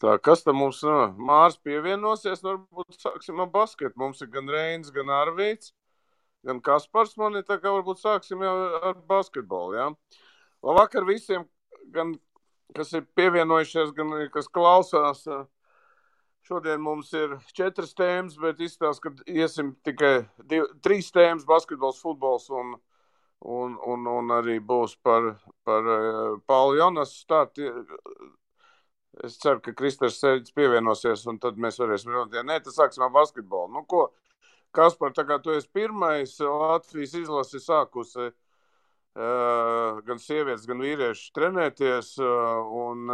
Tā, kas tam mums Mārs pievienosies? Varbūt sāksim ar basketu. Mums ir gan Reinis, gan Arvīts, gan Kaspars. Man ir tā kā varbūt sāksim jau ar basketbolu, jā. Labvakar visiem, gan kas ir pievienojušies, gan kas klausās. Šodien mums ir 4 tēmas, bet izstāsta, ka iesim tikai 3 tēmas - basketbols, futbols un arī būs par Paulu Jonas startu. Es ceru, ka Kristers Sēģis pievienosies, un tad mēs varēsim runāt. Ja nē, tad sāksim ar basketbolu. Nu, ko, Kaspar, tā kā tu esi pirmais, Latvijas izlase sākusi gan sievietes, gan vīrieši trenēties, un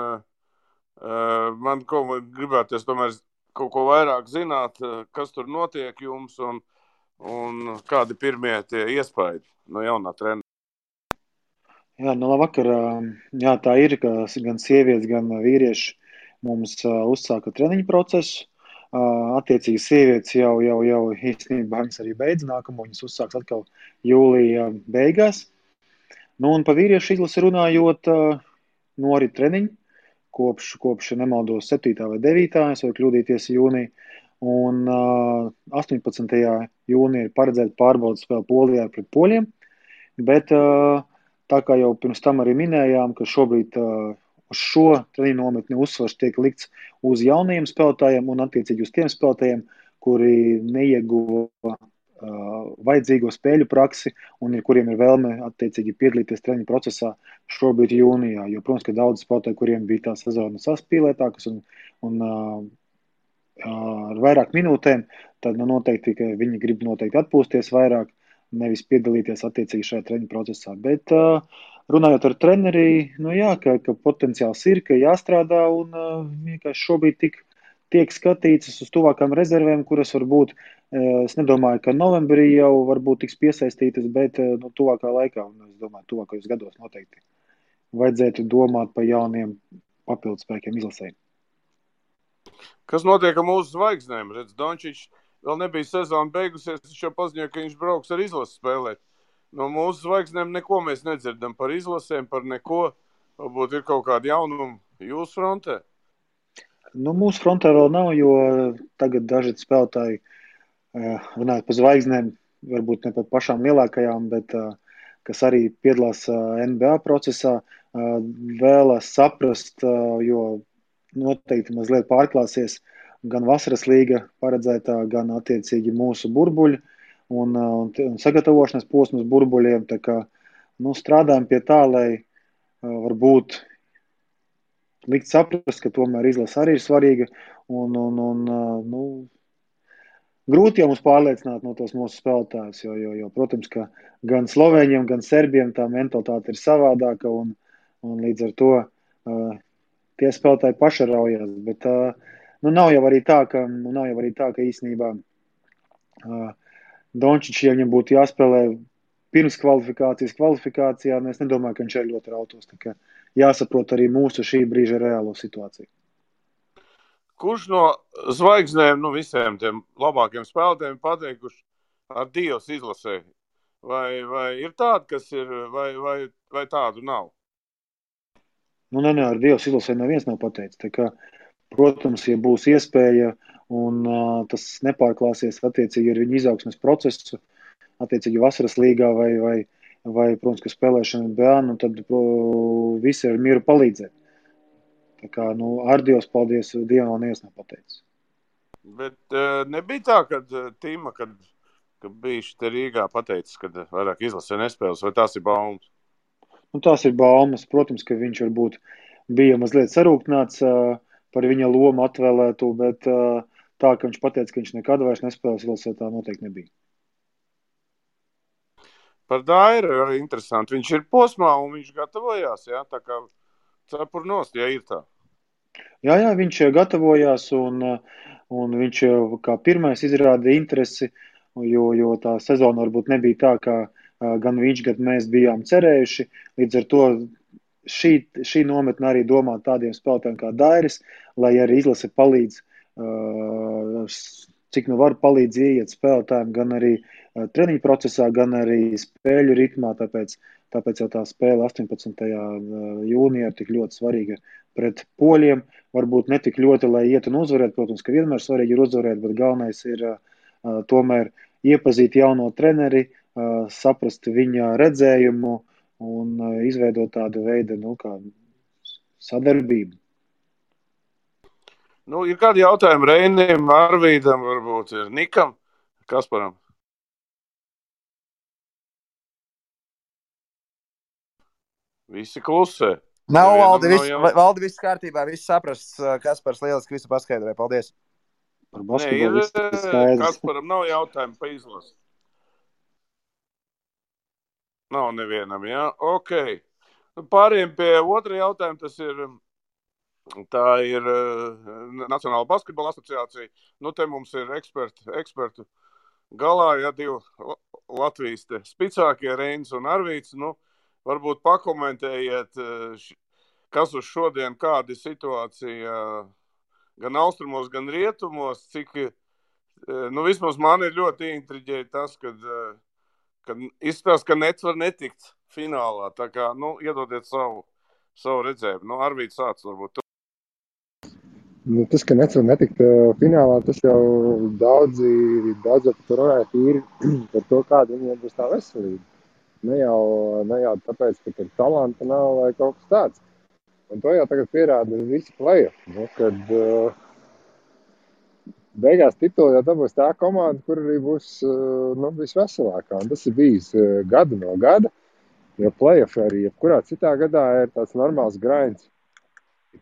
man gribēties tomēr kaut ko vairāk zināt, kas tur notiek jums, un kādi pirmie tie iespaidi no jaunā trenera. Jā, nu labvakar. Jā, tā ir, ka gan sievietes, gan vīrieši mums uzsāka treniņu procesu. Attiecīgi sievietes jau īstenībā viņas arī beidz nākamo, viņas uzsāks atkal jūlija beigās. Nu un pa vīriešu izlasi runājot, norit treniņi kopš nemaldos 7. vai 9. es varu kļūdīties jūnija. Un 18. jūnija ir paredzēta pārbaudas spēle Polijā pret poļiem, bet tā kā jau pirms tam arī minējām, ka šobrīd uz šo treniņu nometni uzsvars tiek likts uz jaunajiem spēlētājiem un attiecīgi uz tiem spēlētājiem, kuri neieguva vajadzīgo spēļu praksi un kuriem ir vēlme attiecīgi piedalīties treniņu procesā šobrīd jūnijā. Jo, protams, ka daudz spēlētāju, kuriem bija tā sezona saspīlētākas un ar vairāk minūtēm, tad noteikti, ka viņi grib noteikti atpūsties vairāk, nevis piedalīties attiecīgi šajā treniņu procesā. Bet runājot ar treneri, nu jā, ka potenciāls ir, ka jāstrādā un vienkārši šobrīd tiek skatīts uz tuvākām rezervēm, kuras varbūt, es nedomāju, ka novembrī jau varbūt tiks piesaistītas, bet tuvākā laikā, un es domāju, tuvākajos gados noteikti vajadzētu domāt par jauniem papildspēkiem izlasēm. Kas notiek ar mūsu zvaigznēm? Redz, Dončičs vēl nebija sezona beigusies, viņš jau paziņoja, ka viņš brauks ar izlasi spēlēt. No mūsu zvaigznēm neko mēs nedzirdam par izlasēm, par neko. Varbūt ir kaut kādi jaunumi jūsu frontē? Nu, mūsu frontē vēl nav, jo tagad daži spēlētāji, runājot par zvaigznēm, varbūt ne par pašām lielākajām, bet kas arī piedalās NBA procesā, vēlas saprast, jo noteikti mazliet pārklāsies gan vasaras līga paredzētā, gan attiecīgi mūsu burbuļi un sagatavošanas posmas burbuļiem. Tā kā strādājam pie tā, lai varbūt likt saprast, ka tomēr izlase arī ir svarīga un grūti jau mums pārliecināt no tos mūsu spēlētājus, jo, protams, ka gan slovēņiem, gan serbiem tā mentalitāte ir savādāka un līdz ar to tie spēlētāji pašaraujās, bet nav jau arī tā, ka īstenībā Dončičs, ja viņam būtu jāspēlē pirms kvalifikācijā, es nedomāju, ka viņš ir ļoti rautos. Tā kā jāsaprot arī mūsu šī brīža reālo situāciju. Kurš no zvaigznēm, visiem tiem labākiem spēlētājiem pateikuši ar Dievs izlasē? Vai ir tādi, kas ir, vai tādu nav? Nē, ar Dievs izlasē neviens nav pateicis. Tā kā, protams, ja būs iespēja un tas nepārklāsies attiecīgi ar viņu izaugsmes procesu, attiecīgi vasaras līgā vai protams, ka spēlēšana NBA, tad visi ar mieru palīdzēt. Tā kā, ar Dievs, paldies, Dievam neviens nav pateicis. Bet nebija tā, kad Tima, kad bija šeit Rīgā pateicis, ka vairāk izlasē nespēles, vai tās ir baumas? Tās ir baumas. Protams, ka viņš varbūt bija mazliet sarūktināts par viņa lomu atvēlētu, bet tā, ka viņš pateica, ka viņš nekad vairs nespēlēs izlasē, tā noteikti nebija. Par Dairu arī interesanti. Viņš ir posmā un viņš gatavojās, jā, tā kā cepur nost, ja ir tā. Jā, viņš gatavojās un viņš kā pirmais izrāda interesi, jo tā sezona varbūt nebija tā, kā gan viņš, gan mēs bijām cerējuši. Līdz ar to šī nometne arī domā tādiem spēlētājiem kā Dairis, lai arī izlase palīdz, cik var palīdz ieiet spēlētājiem gan arī treniņu procesā, gan arī spēļu ritmā, tāpēc jau tā spēle 18. jūnijā ir tik ļoti svarīga pret poļiem, varbūt ne tik ļoti, lai iet un uzvarēt, protams, ka vienmēr svarīgi ir uzvarēt, bet galvenais ir tomēr iepazīt jauno treneri, saprast viņa redzējumu un izveidot tādu veidu, kā sadarbību. Ir kādi jautājumi Reinim, Arvīdam, varbūt ir Nikam, Kasparam? Visi klusē. Nav, Valdi, viss kārtībā, viss saprasts. Kaspars lieliski visu paskaidroja. Paldies. Par basketbolu viss skaidrs. Kasparam nav jautājumu pa izlasi. Nav nevienam, jā? Ok. Pārējiem pie otra jautājuma, tā ir Nacionāla basketbola asociācija. Te mums ir ekspertu galā, ja divi Latvijas spicākie Reinis un Arvīts. Varbūt pakomentējiet, kas uz šodien, kāda ir situācija gan austrumos, gan rietumos, cik, vismaz man ir ļoti intriģēja tas, kad izskatās, ka Nets var netikt finālā. Tā kā, iedodiet savu redzējumu. Arvīts sāc varbūt. Tas, ka Nets var netikt finālā, tas jau daudzi par runāja tīri par to, kāda viņiem būs tā veselība. Ne jau tāpēc, ka tur talanta nav vai kaut kas tāds. Un to jau tagad pierāda visi play-off, kad beigās titulu jau dabūs tā komanda, kur arī būs visveselākā. Un tas ir bijis gadu no gada, jo play-off arī jebkurā citā gadā ir tāds normāls grinds.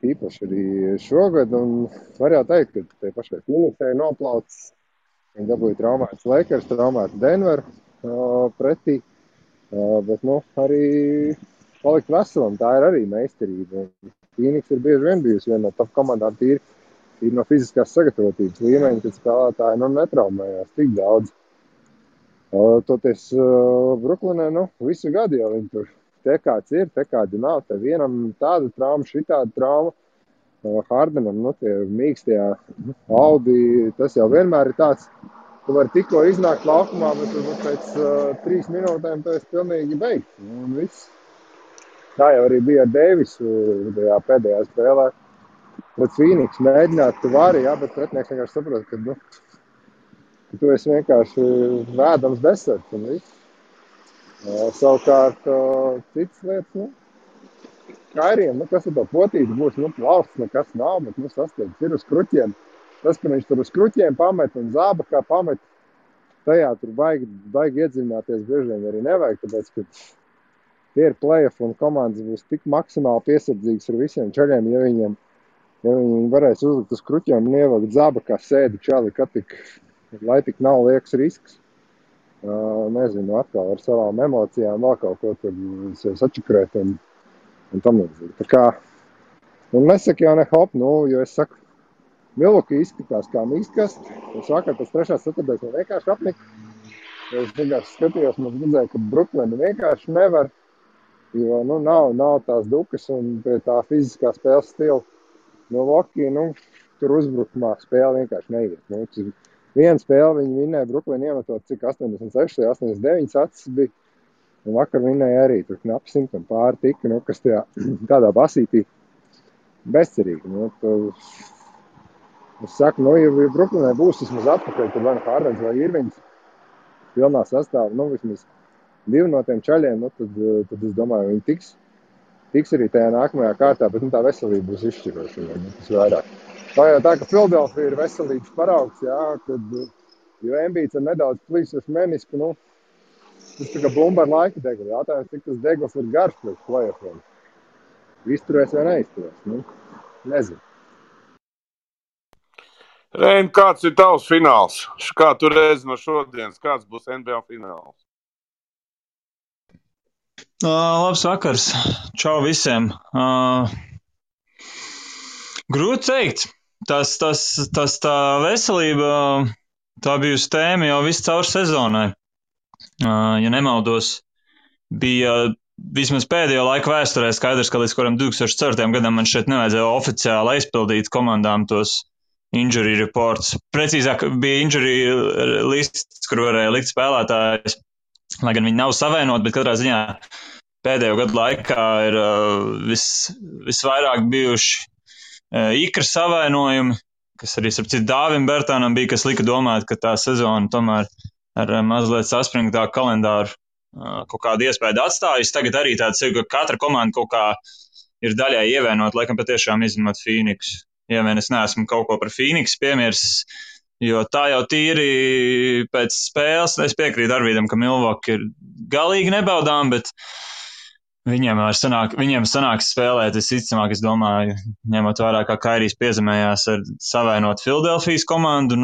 Īpaši arī šogad, un var jau teikt, ka tie pašai Phoenixai noplaucis. Viņi dabūja traumētas Lakers, traumētu Denveru pretī. Bet arī palikt veselam, tā ir arī meistarība. Phoenix ir bieži vien bijusi viena no top komandām tīri no fiziskās sagatavotības līmeņa, kad spēlētāji netraumējās tik daudz. Toties Bruklinē visu gadu jau viņi tur te kāds ir, te kādi nav. Te vienam tāda trauma, šitāda trauma. Hardenam, tie mīkstie Audi, tas jau vienmēr ir tāds. Tu vari tikko iznākt laukumā, bet pēc 3 minūtēm tu esi pilnīgi beigts. Un viss. Tā jau arī bija ar Deivisu tajā pēdējā spēlē. Pret Phoenix mēģināt, tu vari, bet pretinieks vienkārši saprot, ka tu esi vienkārši vēdams deserts un viss. Savukārt citas lietas, Kairiem, kas ar to potīti būs, plausts nekas nav, bet sasteigts ir uz kruķiem. Tas, ka viņš tur uz kruķiem pamet un zāba kā pamet, tajā tur baigi iedziļināties bieži vien arī nevajag, tāpēc, ka tie ir play-off un komandas būs tik maksimāli piesardzīgas ar visiem čaļiem, ja viņi varēs uzlikt uz kruķiem un ievakt zāba kā sēdi čali, lai tik nav liekas risks. Nezinu, atkal ar savām emocijām vēl kaut ko tur sačakrēt un tam līdzīgi. Tā kā, nesaka jau ne hop, jo es saku, Milwaukee izskatās kā mīkstkasts. Es vakar pēc 3. ceturtdaļas man vienkārši apnika. Es vienkārši skatījos, man redzēju, ka Bruklina vienkārši nevar, jo nav tās dukas un pie tā fiziskā spēles stila. Milwaukee, tur uzbrukumā spēle vienkārši neiet. Viena spēle viņi vinnēja, Bruklina iemetot cik 86, 89 acis bija. Un vakar vinnēja arī tur knapi 100 un pāri tika, kas tādā basītī bezcerīgi. Es saku, ja Bruklinē būs vismaz atpakaļ, tad vai Hardens vai Irvings pilnā sastāvā, vismaz 2 no tiem čaļiem, tad es domāju, viņi tiks arī tajā nākamajā kārtā, bet tā veselība būs izšķiroša, tas vairāk. Tā jau tā, ka Philadelphia ir veselības paraugs, jo Embiids ir nedaudz plīsuši menisku, tas tā kā bumba ar laika degli, jātājums, cik tas degls ir garš pēc play-offiem. Izturēs vai neizturēs, nezinu. Rein, kāds ir tavs fināls? Kā tu redzi no šodienas? Kāds būs NBA fināls? Labs vakars. Čau visiem. Grūti teikt. Tas tā veselība, tā bijusi tēma jau visu caur sezonai. Ja nemaldos, bija vismaz pēdējo laiku vēsturē skaidrs, ka līdz kuram 2004. gadam man šeit nevajadzēja oficiāli aizpildīt komandām tos injury reports. Precīzāk bija injury lists, kur varēja likt spēlētājus, lai gan viņi nav savienoti, bet katrā ziņā pēdējo gadu laikā ir visvairāk bijuši Ikra savainojumi, kas arī, starp citu, Dāvim Bertānam bija, kas lika domāt, ka tā sezona tomēr ar mazliet saspringtāku kalendāru kaut kādu iespēju atstājusi. Tagad arī tāds ir, ka katra komanda kaut kā ir daļai ievainot, laikam patiešām izņemot Phoenixu. Ja vien es neesmu kaut ko par Phoenixu piemirsis, jo tā jau tīri pēc spēles, es piekrītu Arvīdam, ka Milwaukee ir galīgi nebaudām, bet viņiem sanāks spēlēt, visticamāk, es domāju, ņemot vērā, kā Kairijs piezemējās ar savainot Filadelfijas komandu,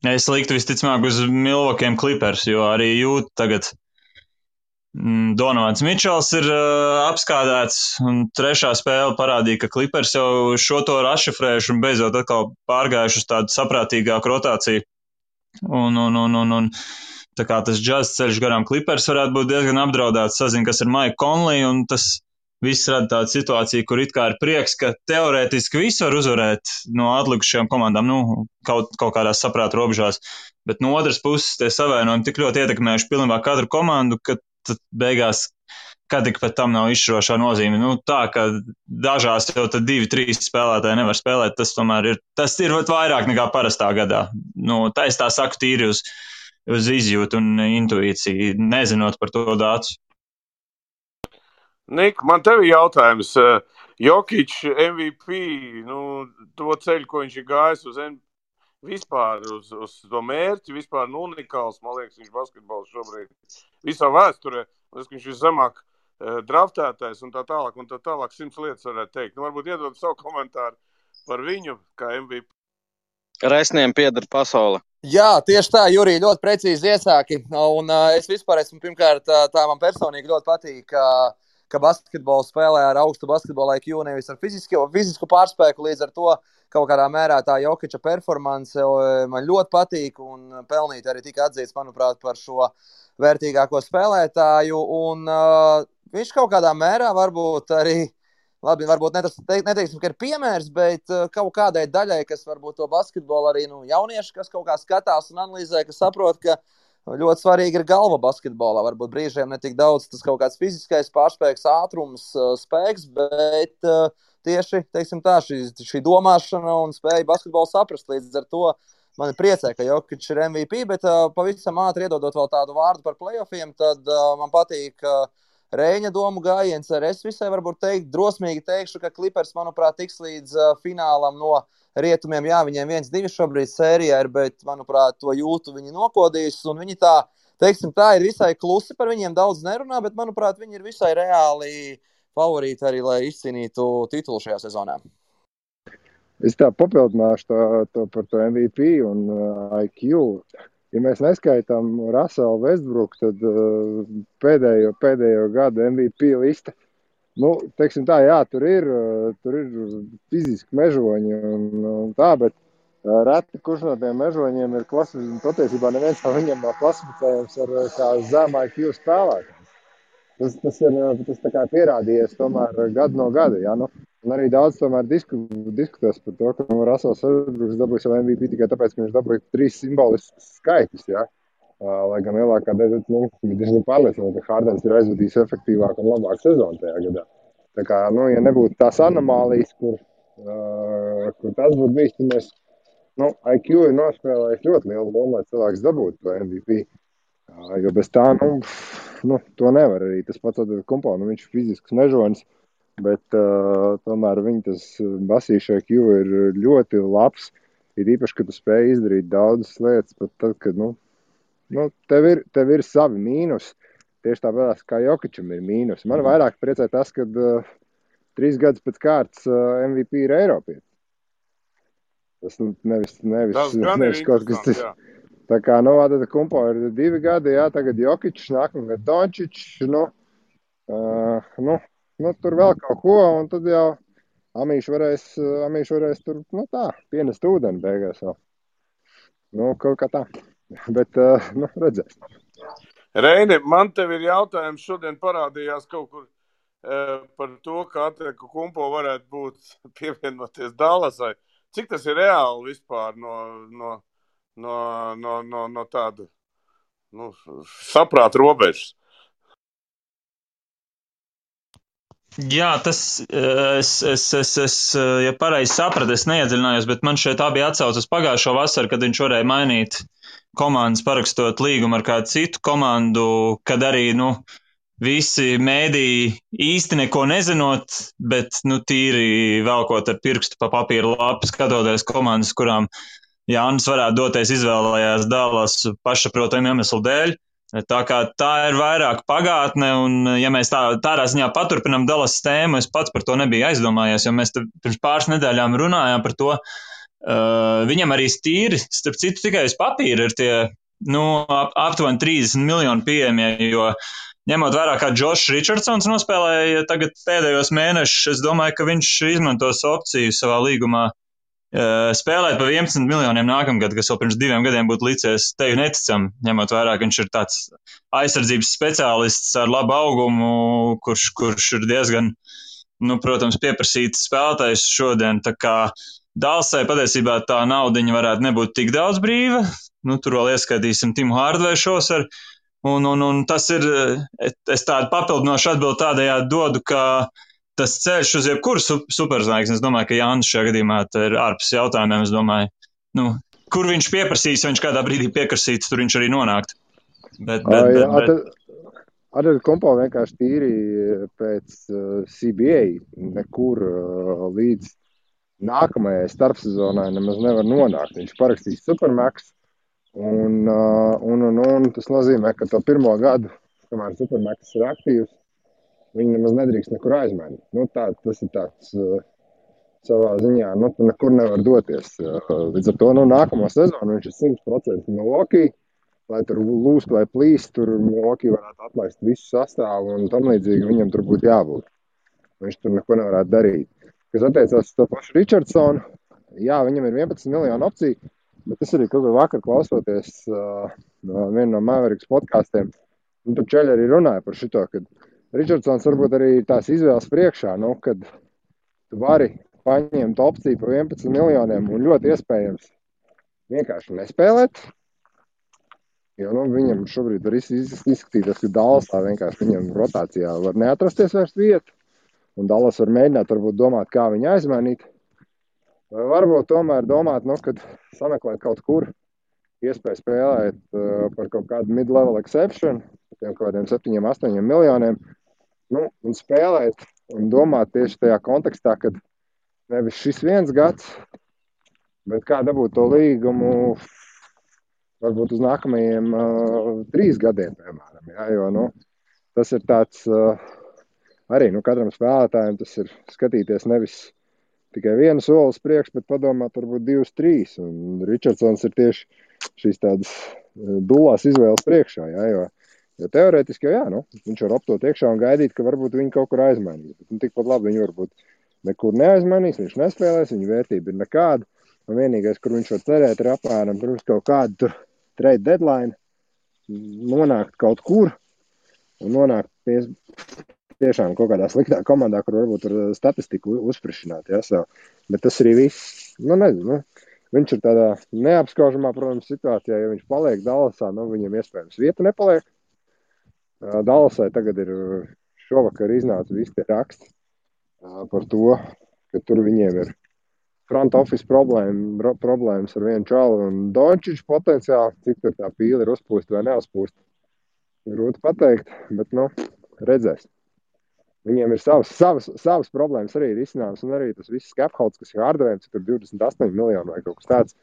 es liktu visticamāk uz Milwaukee Clippers, jo arī jūt tagad Donovans Mičels ir apskādēts, un trešā spēle parādīja, ka Clippers jau šo to rašifrējuši un beidzot atkal pārgājuši uz tādu saprātīgāku rotāciju. Un tā kā tas džaz ceļš garām Clippers varētu būt diezgan apdraudēts, sazin, kas ir Mike Conley, un tas viss rada tādu situāciju, kur it kā ir prieks, ka teorētiski visu var uzvarēt no atlikušajām komandām, kaut kādās saprāta robežās, bet no otras puses tie savainojumi tik ļoti ietekmējuši pilnībā katru komandu, ka tad beigās, kad tik pat tam nav izšķirošā nozīme. Tā, ka dažās jau tad 2-3 spēlētāji nevar spēlēt, tas tomēr ir vairāk nekā parastā gadā. Tā es tā saku tīri uz izjūtu un intuīciju, nezinot par to dātu. Nik, man tev ir jautājums. Jokić MVP, to ceļu, ko viņš ir gājis vispār uz to mērķi, vispār unikāls, man liekas, viņš basketbols šobrīd visā vēsturē. Viņš ir zemāk draftētais un tā tālāk, 100 lietas varētu teikt. Varbūt iedod savu komentāru par viņu kā MVP. Resniem pieder pasaule. Jā, tieši tā, Jurij, ļoti precīzi iesāki. Un es vispār esmu, pirmkārt, tā man personīgi ļoti patīk, ka basketbolu spēlē ar augstu basketbola IQ, nevis ar fizisku pārspēku, līdz ar to kaut kādā mērā tā Jokića performance man ļoti patīk un pelnīt arī tika atzīts, manuprāt, par šo vērtīgāko spēlētāju. Un viņš kaut kādā mērā varbūt arī, labi, varbūt neteiksim, ka ir piemērs, bet kaut kādai daļai, kas varbūt to basketbolu arī jaunieši, kas kaut kā skatās un analizē, kas saprot, ka ļoti svarīgi ir galva basketbolā. Varbūt brīžiem ne tik daudz tas kaut kāds fiziskais pārspēks, ātrums, spēks, bet tieši, teiksim tā, šī domāšana un spēja basketbolu saprast. Līdz ar to mani priecē, ka Jokić ir MVP, bet pavisam ātri iedodot vēl tādu vārdu par playoffiem, tad man patīk Reiņa domu gājiens. Es visai varbūt drosmīgi teikšu, ka Clippers, manuprāt, tiks līdz finālam no rietumiem. Jā, viņiem 1-2 šobrīd sērijā ir, bet, manuprāt, to jūtu viņi nokodīs, un viņi tā, teiksim tā, ir visai klusi, par viņiem daudz nerunā, bet, manuprāt, viņi ir visai reāli favorīti arī, lai izcīnītu titulu šajā sezonā. Es tā papildināšu to par to MVP un IQ. Ja mēs neskaitām Russellu Westbrooku, tad pēdējo gadu MVP lista, teiksim tā, jā, tur ir fiziski mežoņi un tā, bet reti kurš no tiem mežoņiem ir klasificējums, patiesībā neviens no viņiem nav klasificējums ar kā zem IQ spēlētājiem. Tas tā kā pierādījies tomēr gadu no gada, jā, un arī daudz tomēr diskutēs par to, ka Russells Westbrooks dabūja savu MVP tikai tāpēc, ka viņš dabūja 3 simboliskus skaitus, jā. Lai gan lielākā daļa diezgan pārliecināta, ka Hardens ir aizvadījis efektīvāku un labāku sezonu tajā gadā. Tā kā, ja nebūtu tās anomālijas, kur tas būtu bijis, tad mēs, IQ ir nospēlējis ļoti lielu lomu, lai cilvēks dabūtu to MVP. Jo bez tā, to nevar arī. Tas pats Kumpo, viņš ir fizisks mežonis, bet tomēr viņa tas basīša IQ ir ļoti labs. Ir īpaši, ka tu spēj izdarīt daudzas lietas, pat tad, kad, tev ir savi mīnus. Tieši tāpēc, kā Jokićam ir mīnus. Man vairāk priecē tas, kad 3 gadus pēc kārtas MVP ir Eiropietis. Tas nevis kaut kas tas. Tā kā, tad Kumpo ir 2 gadi, jā, tagad Jokićs, nākamgad Dončić, tur vēl kaut ko, un tad jau Amīši varēs tur, pienest ūdeni beigās vēl. Kaut kā tā. Bet, redzēs. Reini, man tev ir jautājums, šodien parādījās kaut kur par to, ka Kumpo varētu būt pievienoties Dallasai. Cik tas ir reāli vispār no tāda saprāta robežas? Jā, ja pareizi sapratu, es neiedziļinājos, bet man šeit tā bija atsauce uz pagājušo vasaru, kad viņš varēja mainīt komandas, parakstot līgumu ar kādu citu komandu, kad arī, visi mēdīji īsti neko nezinot, bet, tīri velkot ar pirkstu pa papīra lapu, skatoties komandas, kurām Jānis varētu doties, izvēlējās Dallas pašsaprotamu iemeslu dēļ. Tā kā tā ir vairāk pagātne, un ja mēs tādā ziņā paturpinām Dallas tēmu, es pats par to nebiju aizdomājies, jo mēs pirms pāris nedēļām runājām par to. Viņam arī stīri, starp citu, tikai uz papīra ir tie, aptuveni 30 miljoni pieejamie, jo ņemot vērā, kā Džošs Richardsons nospēlēja tagad pēdējos mēnešus, es domāju, ka viņš izmantos opciju savā līgumā spēlēt pa 11 miljoniem nākamgad, kas vēl pirms 2 gadiem būtu licies tevi neticam, ņemot vērā, ka viņš ir tāds aizsardzības speciālists ar labu augumu, kurš ir diezgan, protams, pieprasīts spēlētājs šodien. Tā kā Dallasai patiesībā tā naudiņa varētu nebūt tik daudz brīva. Tur vēl ieskaitīsim Timu Hardveju šovasar. Un tas ir, es tādu papildinošu atbildi tādējādi dodu, ka tas ceļš uz jebkuru superzvaigzni, es domāju, ka Jānis šajā gadījumā ir ārpus jautājumiem, es domāju, kur viņš pieprasīs, ja viņš kādā brīdī pieprasīts, tur viņš arī nonākt. Ar kompo vienkārši tīri pēc CBA nekur līdz nākamajai starpsezonai nemaz nevar nonākt. Viņš parakstīs Supermax, un tas nozīmē, ka to pirmo gadu, kamēr Supermax ir aktīvs, viņi nemaz nedrīkst nekur aizmainīt. Tas ir tāds savā ziņā, tu nekur nevar doties. Līdz ar to nākamo sezonu viņš ir 100% Milwaukee, lai tur lūst vai plīst, tur Milwaukee varētu atlaist visu sastāvu un tam līdzīgi viņam tur būtu jābūt. Viņš tur neko nevarētu darīt. Kas attiecās uz to pašu Richardsonu, jā, viņam ir 11 miljonu opciju, bet tas arī kaut kā vakar klausoties vienu no Mavericks podkastiem, tur čeļi arī runāja par šito, kad Richardsons varbūt arī tās izvēles priekšā, kad tu vari paņemt opciju par 11 miljoniem un ļoti iespējams vienkārši nespēlēt, jo viņam šobrīd var izskatīties, ka Dallasā vienkārši viņam rotācijā var neatrasties vairs vieta, un Dallas var mēģināt varbūt domāt, kā viņu aizmainīt, vai varbūt tomēr domāt, kad sameklēt kaut kur iespēju spēlēt par kaut kādu mid-level exception, par kaut kādiem 7-8 miljoniem, un spēlēt un domāt tieši tajā kontekstā, kad nevis šis 1 gads, bet kā dabūt to līgumu varbūt uz nākamajiem 3 gadiem, piemēram. Jā, jo tas ir tāds arī katram spēlētājiem tas ir skatīties nevis tikai 1 soli uz priekšu, bet padomāt varbūt 2, 3. Un Richardsons ir tieši šīs tādas dulās izvēles priekšā, jā, jo teorētiski jau viņš var optot iekšā un gaidīt, ka varbūt viņi kaut kur aizmainīs. Tikpat labi viņi varbūt nekur neaizmainīs, viņš nespēlēs, viņa vērtība ir nekāda. Un vienīgais, kur viņš var cerēt, ir apmēram pirms kaut kādu trade deadline nonākt kaut kur un nonākt tiešām kaut kādā sliktā komandā, kur varbūt ar statistiku uzsprišināt. Ja, bet tas arī viss, nezinu. Viņš ir tādā neapskaužamā, protams, situācijā, ja viņš paliek Dallasā, viņam iespējams vieta nepaliek. Dallasai tagad ir šovakar iznāca visi tie raksti par to, ka tur viņiem ir front office problēmas ar vienu čalu un Dončiču potenciāli, cik tur tā pīle ir uzpūsta vai neuzpūsta. Grūti pateikt, bet redzēs. Viņiem ir savas problēmas arī ir izcināmas, un arī tas viss capholds, kas ir Hardvejam, cik tur 28 miljonu vai kaut kas tāds,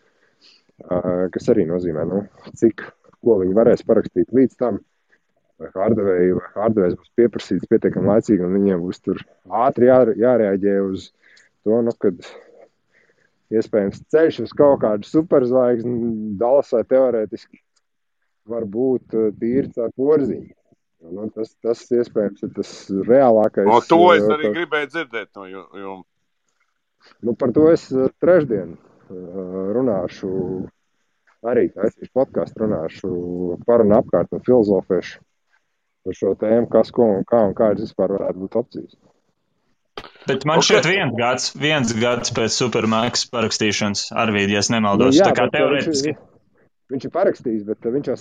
kas arī nozīmē, ko viņi varēs parakstīt līdz tam, vai Hardvejs būs pieprasīts pietiekami laicīgi, un viņiem būs tur ātri jārēģē uz to, kad iespējams ceļš uz kaut kādu superzvaigzni Dallasai teorētiski var būt tīrts ar porziņu. Tas iespējams ir tas reālākais. To es arī gribēju dzirdēt no jums. Par to es trešdien runāšu, arī taisīšu podcastu, runāšu par un apkārt un filozofēšu par šo tēmu, kas, ko un kādas vispār varētu būt opcijas. Bet man šķiet 1 gads pēc Supermax parakstīšanas, Arvīd, ja es nemaldos. Jā, tā kā teorētiski. Viņš ir parakstījis, bet viņš jau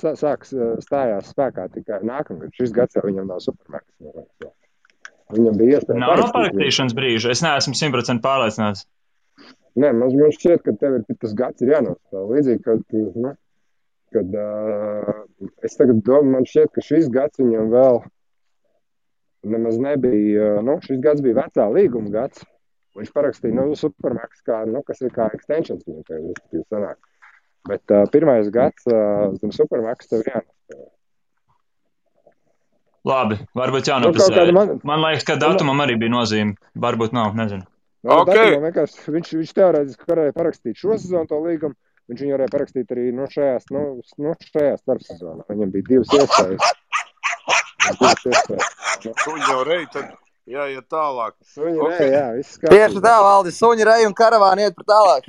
stājās spēkā tikai nākamgad. Šis gads jau viņam nav Supermax. Viņam bija iespēja Nav no parakstīt viņu. parakstīšanas brīža. Es neesmu 100% pārliecināts. Nē, man šķiet, ka tev ir tas gads ir jānostāv. Līdzīgi, kad es tagad domāju, man šķiet, ka šis gads viņam vēl nemaz nebija, šis gads bija vecā līguma gads. Viņš parakstīja, Supermax, kas ir kā extensions viņam tev, respektīvi sanāk. Bet pirmais gads zem Supermax tev jānostāv. Labi, varbūt jānopasē. Man liekas, ka datumam arī bija nozīme. Varbūt nav, nezinu. Okay. Viņš teorētiski varēja parakstīt šo sezonu to līgumu. Viņš viņu varēja parakstīt arī šajā starpsezonā. Viņam bija divas iespējas. Suņi jau rei, tad jāiet tālāk. Suņi rei, jā, viss kārtībā. Tieši tā, Valdi, suņi rei un karavāni iet par tālāk.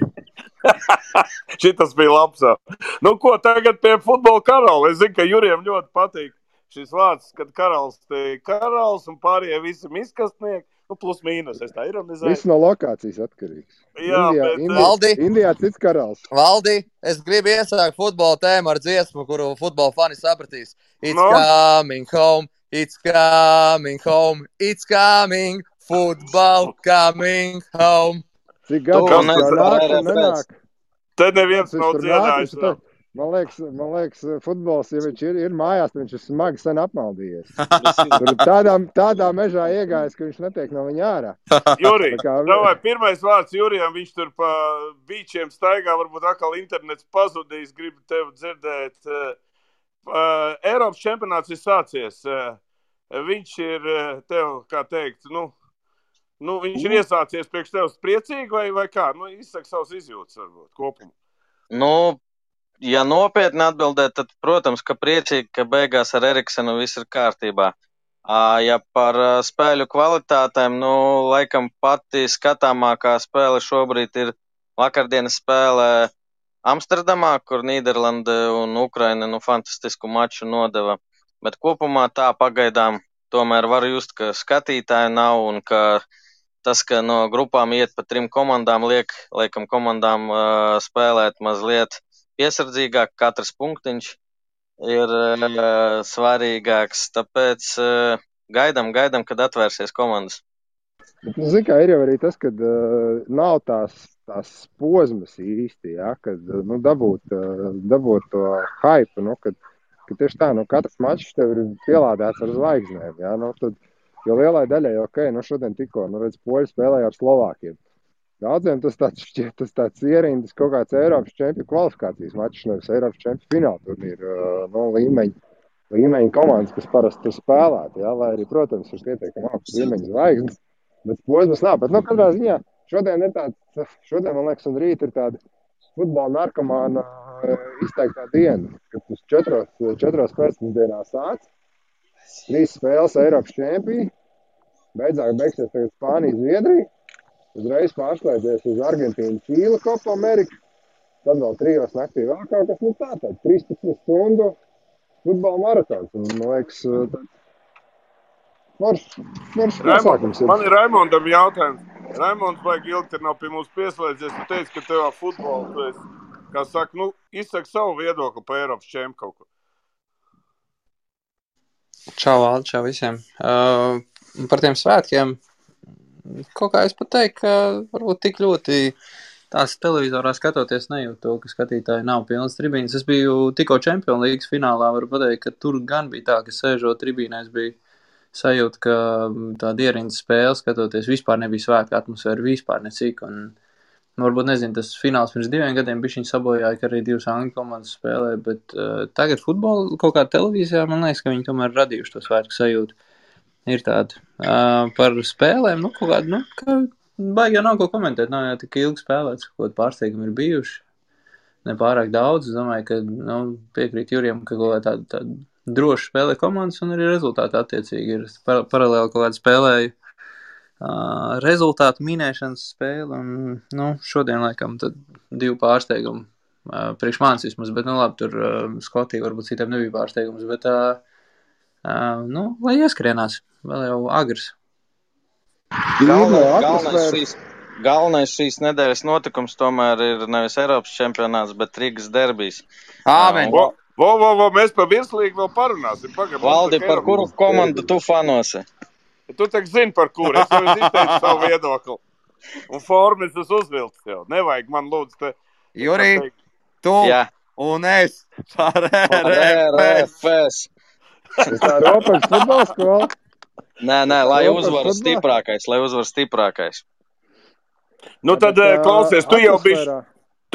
Šitas bija labs. Ko tagad pie futbola karaula? Es zinu, ka Jurijam ļoti patīk šis vārds, kad karalis un pārējie visi miskastnieki. Plus mīnus, es tā ironizēju. Viss no lokācijas atkarīgs. Jā, Indijā cits karalis. Valdi, es gribu iesākt futbola tēmu ar dziesmu, kuru futbola fani sapratīs. It's coming home, it's coming home, it's coming, football coming home. Cik gadu jau nāk un nenāk? Te neviens nav dziedājis. Man liekas, futbols, ja viņš ir mājās, viņš ir smagi sen apmaldījies. Tur tādā mežā iegājis, ka viņš netiek no viņa ārā. Jurij, pirmais vārds Jurijam, viņš tur pa bīčiem staigā, varbūt atkal internets pazudīs, gribu tevi dzirdēt. Eiropas čempionāts ir sācies. Viņš ir tev, kā teikt, viņš ir iesācies priekš tevis priecīgi vai kā? Izsaka savus izjūtas varbūt kopumu. Ja nopietni atbildēt, tad, protams, ka priecīgi, ka beigās ar Eriksenu viss ir kārtībā. Ja par spēļu kvalitātēm, laikam pati skatāmākā spēle šobrīd ir vakardienas spēle Amsterdamā, kur Nīderlande un Ukraina fantastisku maču nodeva. Bet kopumā tā pagaidām tomēr var just, ka skatītāji nav un ka tas, ka no grupām iet pa 3 komandām, liekam komandām spēlēt mazliet piesardzīgāk, katrs punktiņš ir svarīgāks, tāpēc gaidam, kad atvērsies komandas. Zini, kā ir jau arī tas, kad nav tās posmas īsti, ja, kad dabūt to hype, kad tieši tā, katrs mačs tev ir pielādēts ar zvaigznēm, ja, tad, jo lielai daļai, šodien tikko, redz, poļi spēlēja ar Slovākiem. Daudziem tas tāds ierindas kaut kāds Eiropas čempionu kvalifikācijas mačs, nevis Eiropas čempionu fināla turnīra līmeņa komandas, kas parasti tur spēlētu, ja, lai arī, protams, ir pietiekami augsts līmeņa zvaigznes, bet posmas nav. Bet, katrā ziņā, šodien, man liekas, un rīt ir tāda futbola narkomāna izteiktā diena, kad uz 4 pēcpusdienā sāc, 3 spēles Eiropas čempioni, beigsies tagad Spānija, Zviedrija, uzreiz pārslēdzies uz Argentīnu, Čīli, Kopa Amerika, tad vēl 3 naktī vēl kaut kas, tāds 13 stundu futbola maratons. Un, man liekas, tāds pasākums ir. Man ir Raimondam jautājums. Raimonds vajag ilgi, nav pie mums pieslēdzies. Tu teici, ka tev futbolu, tu esi, kā saka, izsaka savu viedokli pa Eiropas čempu kaut ko. Čau, Valdi, čau visiem. Par tiem svētkiem. Kaut kā es pat teiktu, ka varbūt tik ļoti tās televizorā skatoties nejūt to, ka skatītāji nav pilnas tribīnes. Es biju tikko Champions League finālā, varu pateikt, ka tur gan bija tā, ka sēžot tribīnēs bija sajūta, ka tāda ierindas spēle skatoties vispār nebija svētku atmosfēra, vispār necik. Un varbūt, nezinu, tas fināls pirms 2 gadiem bišķiņ sabojāja, ka arī 2 angļu komandas spēlē, bet tagad futbolu kaut kā televīzijā, man liekas, ka viņi tomēr radījuši to svētku sajūtu. Ir tāda. Par spēlēm, kaut kāda, ka baigi jau nav ko komentēt, nav jau tik ilgi spēlēts, kaut kādi pārsteigumi ir bijuši, ne pārāk daudz. Es domāju, ka piekrīt Jurijam, ka kaut kā tāda droša spēlē komandas un arī rezultāti attiecīgi ir. Paralēli kaut kāda spēlēju rezultātu minēšanas spēle un, šodien laikam tad 2 pārsteigumi priekš manis vismaz, bet, labi, tur Skotija varbūt citiem nebija pārsteigums, bet lai ieskrienās, vēl jau agrs. Galvenais šīs nedēļas notikums tomēr ir nevis Eiropas čempionāts, bet Rīgas derbijs. Āmen! Mēs par virslīgu vēl parunāsim. Valdi, par kuru komandu tu fanosi? Tu tak zini, par kuru. Es jau izteicu savu viedokli. Un formas tas uzvilks jau. Nevajag man lūdzu te. Jurij, tu Jā. un es par Ar RFS. RFS. Tas tā ropaļas futbola skola. Nē, lai Ropaļas uzvar futbolā. stiprākais. Nu tad, klausies, tu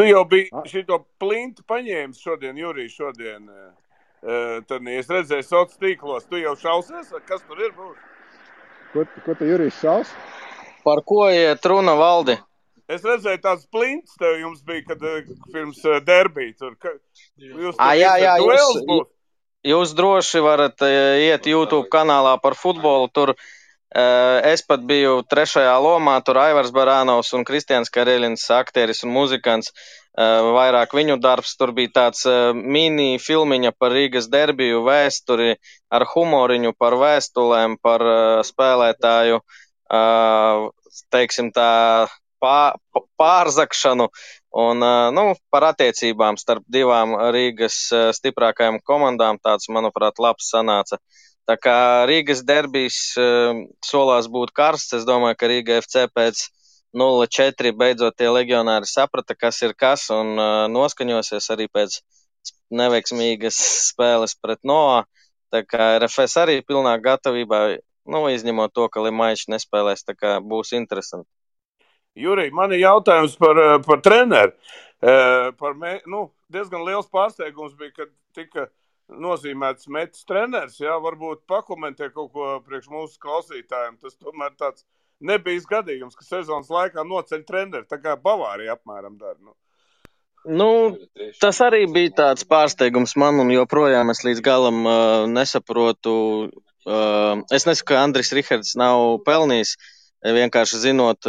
jau biji A- šito plintu paņēmis šodien, Jurij, šodien. Tad, es redzēju sociālos tīklos, tu jau šausies, kas tur ir būs? Ko tu, Jurijs, šaus? Par ko iet runa, Valdi? Es redzēju tāds plints tev jums bija, kad pirms derbī tur. Jūs Jā, duels būs? Jūs droši varat iet YouTube kanālā par futbolu. Tur es pat biju 3. lomā, tur Aivars Barānovs un Kristians Kareļins, aktieris un muzikants. Vairāk viņu darbs. Tur bija tāds mini filmiņa par Rīgas derbiju vēsturi ar humoriņu par vēstulēm, par spēlētāju, teiksim tā, pārzakšanu un par attiecībām starp divām Rīgas stiprākajām komandām. Tāds, manuprāt, labs sanāca. Tā kā Rīgas derbijs solās būt karsts, es domāju, ka Rīga FC pēc 0-4 beidzot tie legionāri saprata, kas ir kas, un noskaņosies arī pēc neveiksmīgas spēles pret Noā. Tā kā RFS arī pilnā gatavībā, izņemot to, ka Limaičs nespēlēs, tā kā būs interesanti. Jurij, man ir jautājums par treneru. Diezgan liels pārsteigums bija, kad tika nozīmēts Metis treneris. Jā, varbūt pakomentē kaut ko priekš mūsu klausītājiem. Tas tomēr tāds nebija gadījums, ka sezonas laikā noceļ treneri, tā kā Bavārija apmēram dara. Tas arī bija tāds pārsteigums man, un joprojām es līdz galam nesaprotu. Es nesaku, ka Andris Rihards nav pelnījis, vienkārši zinot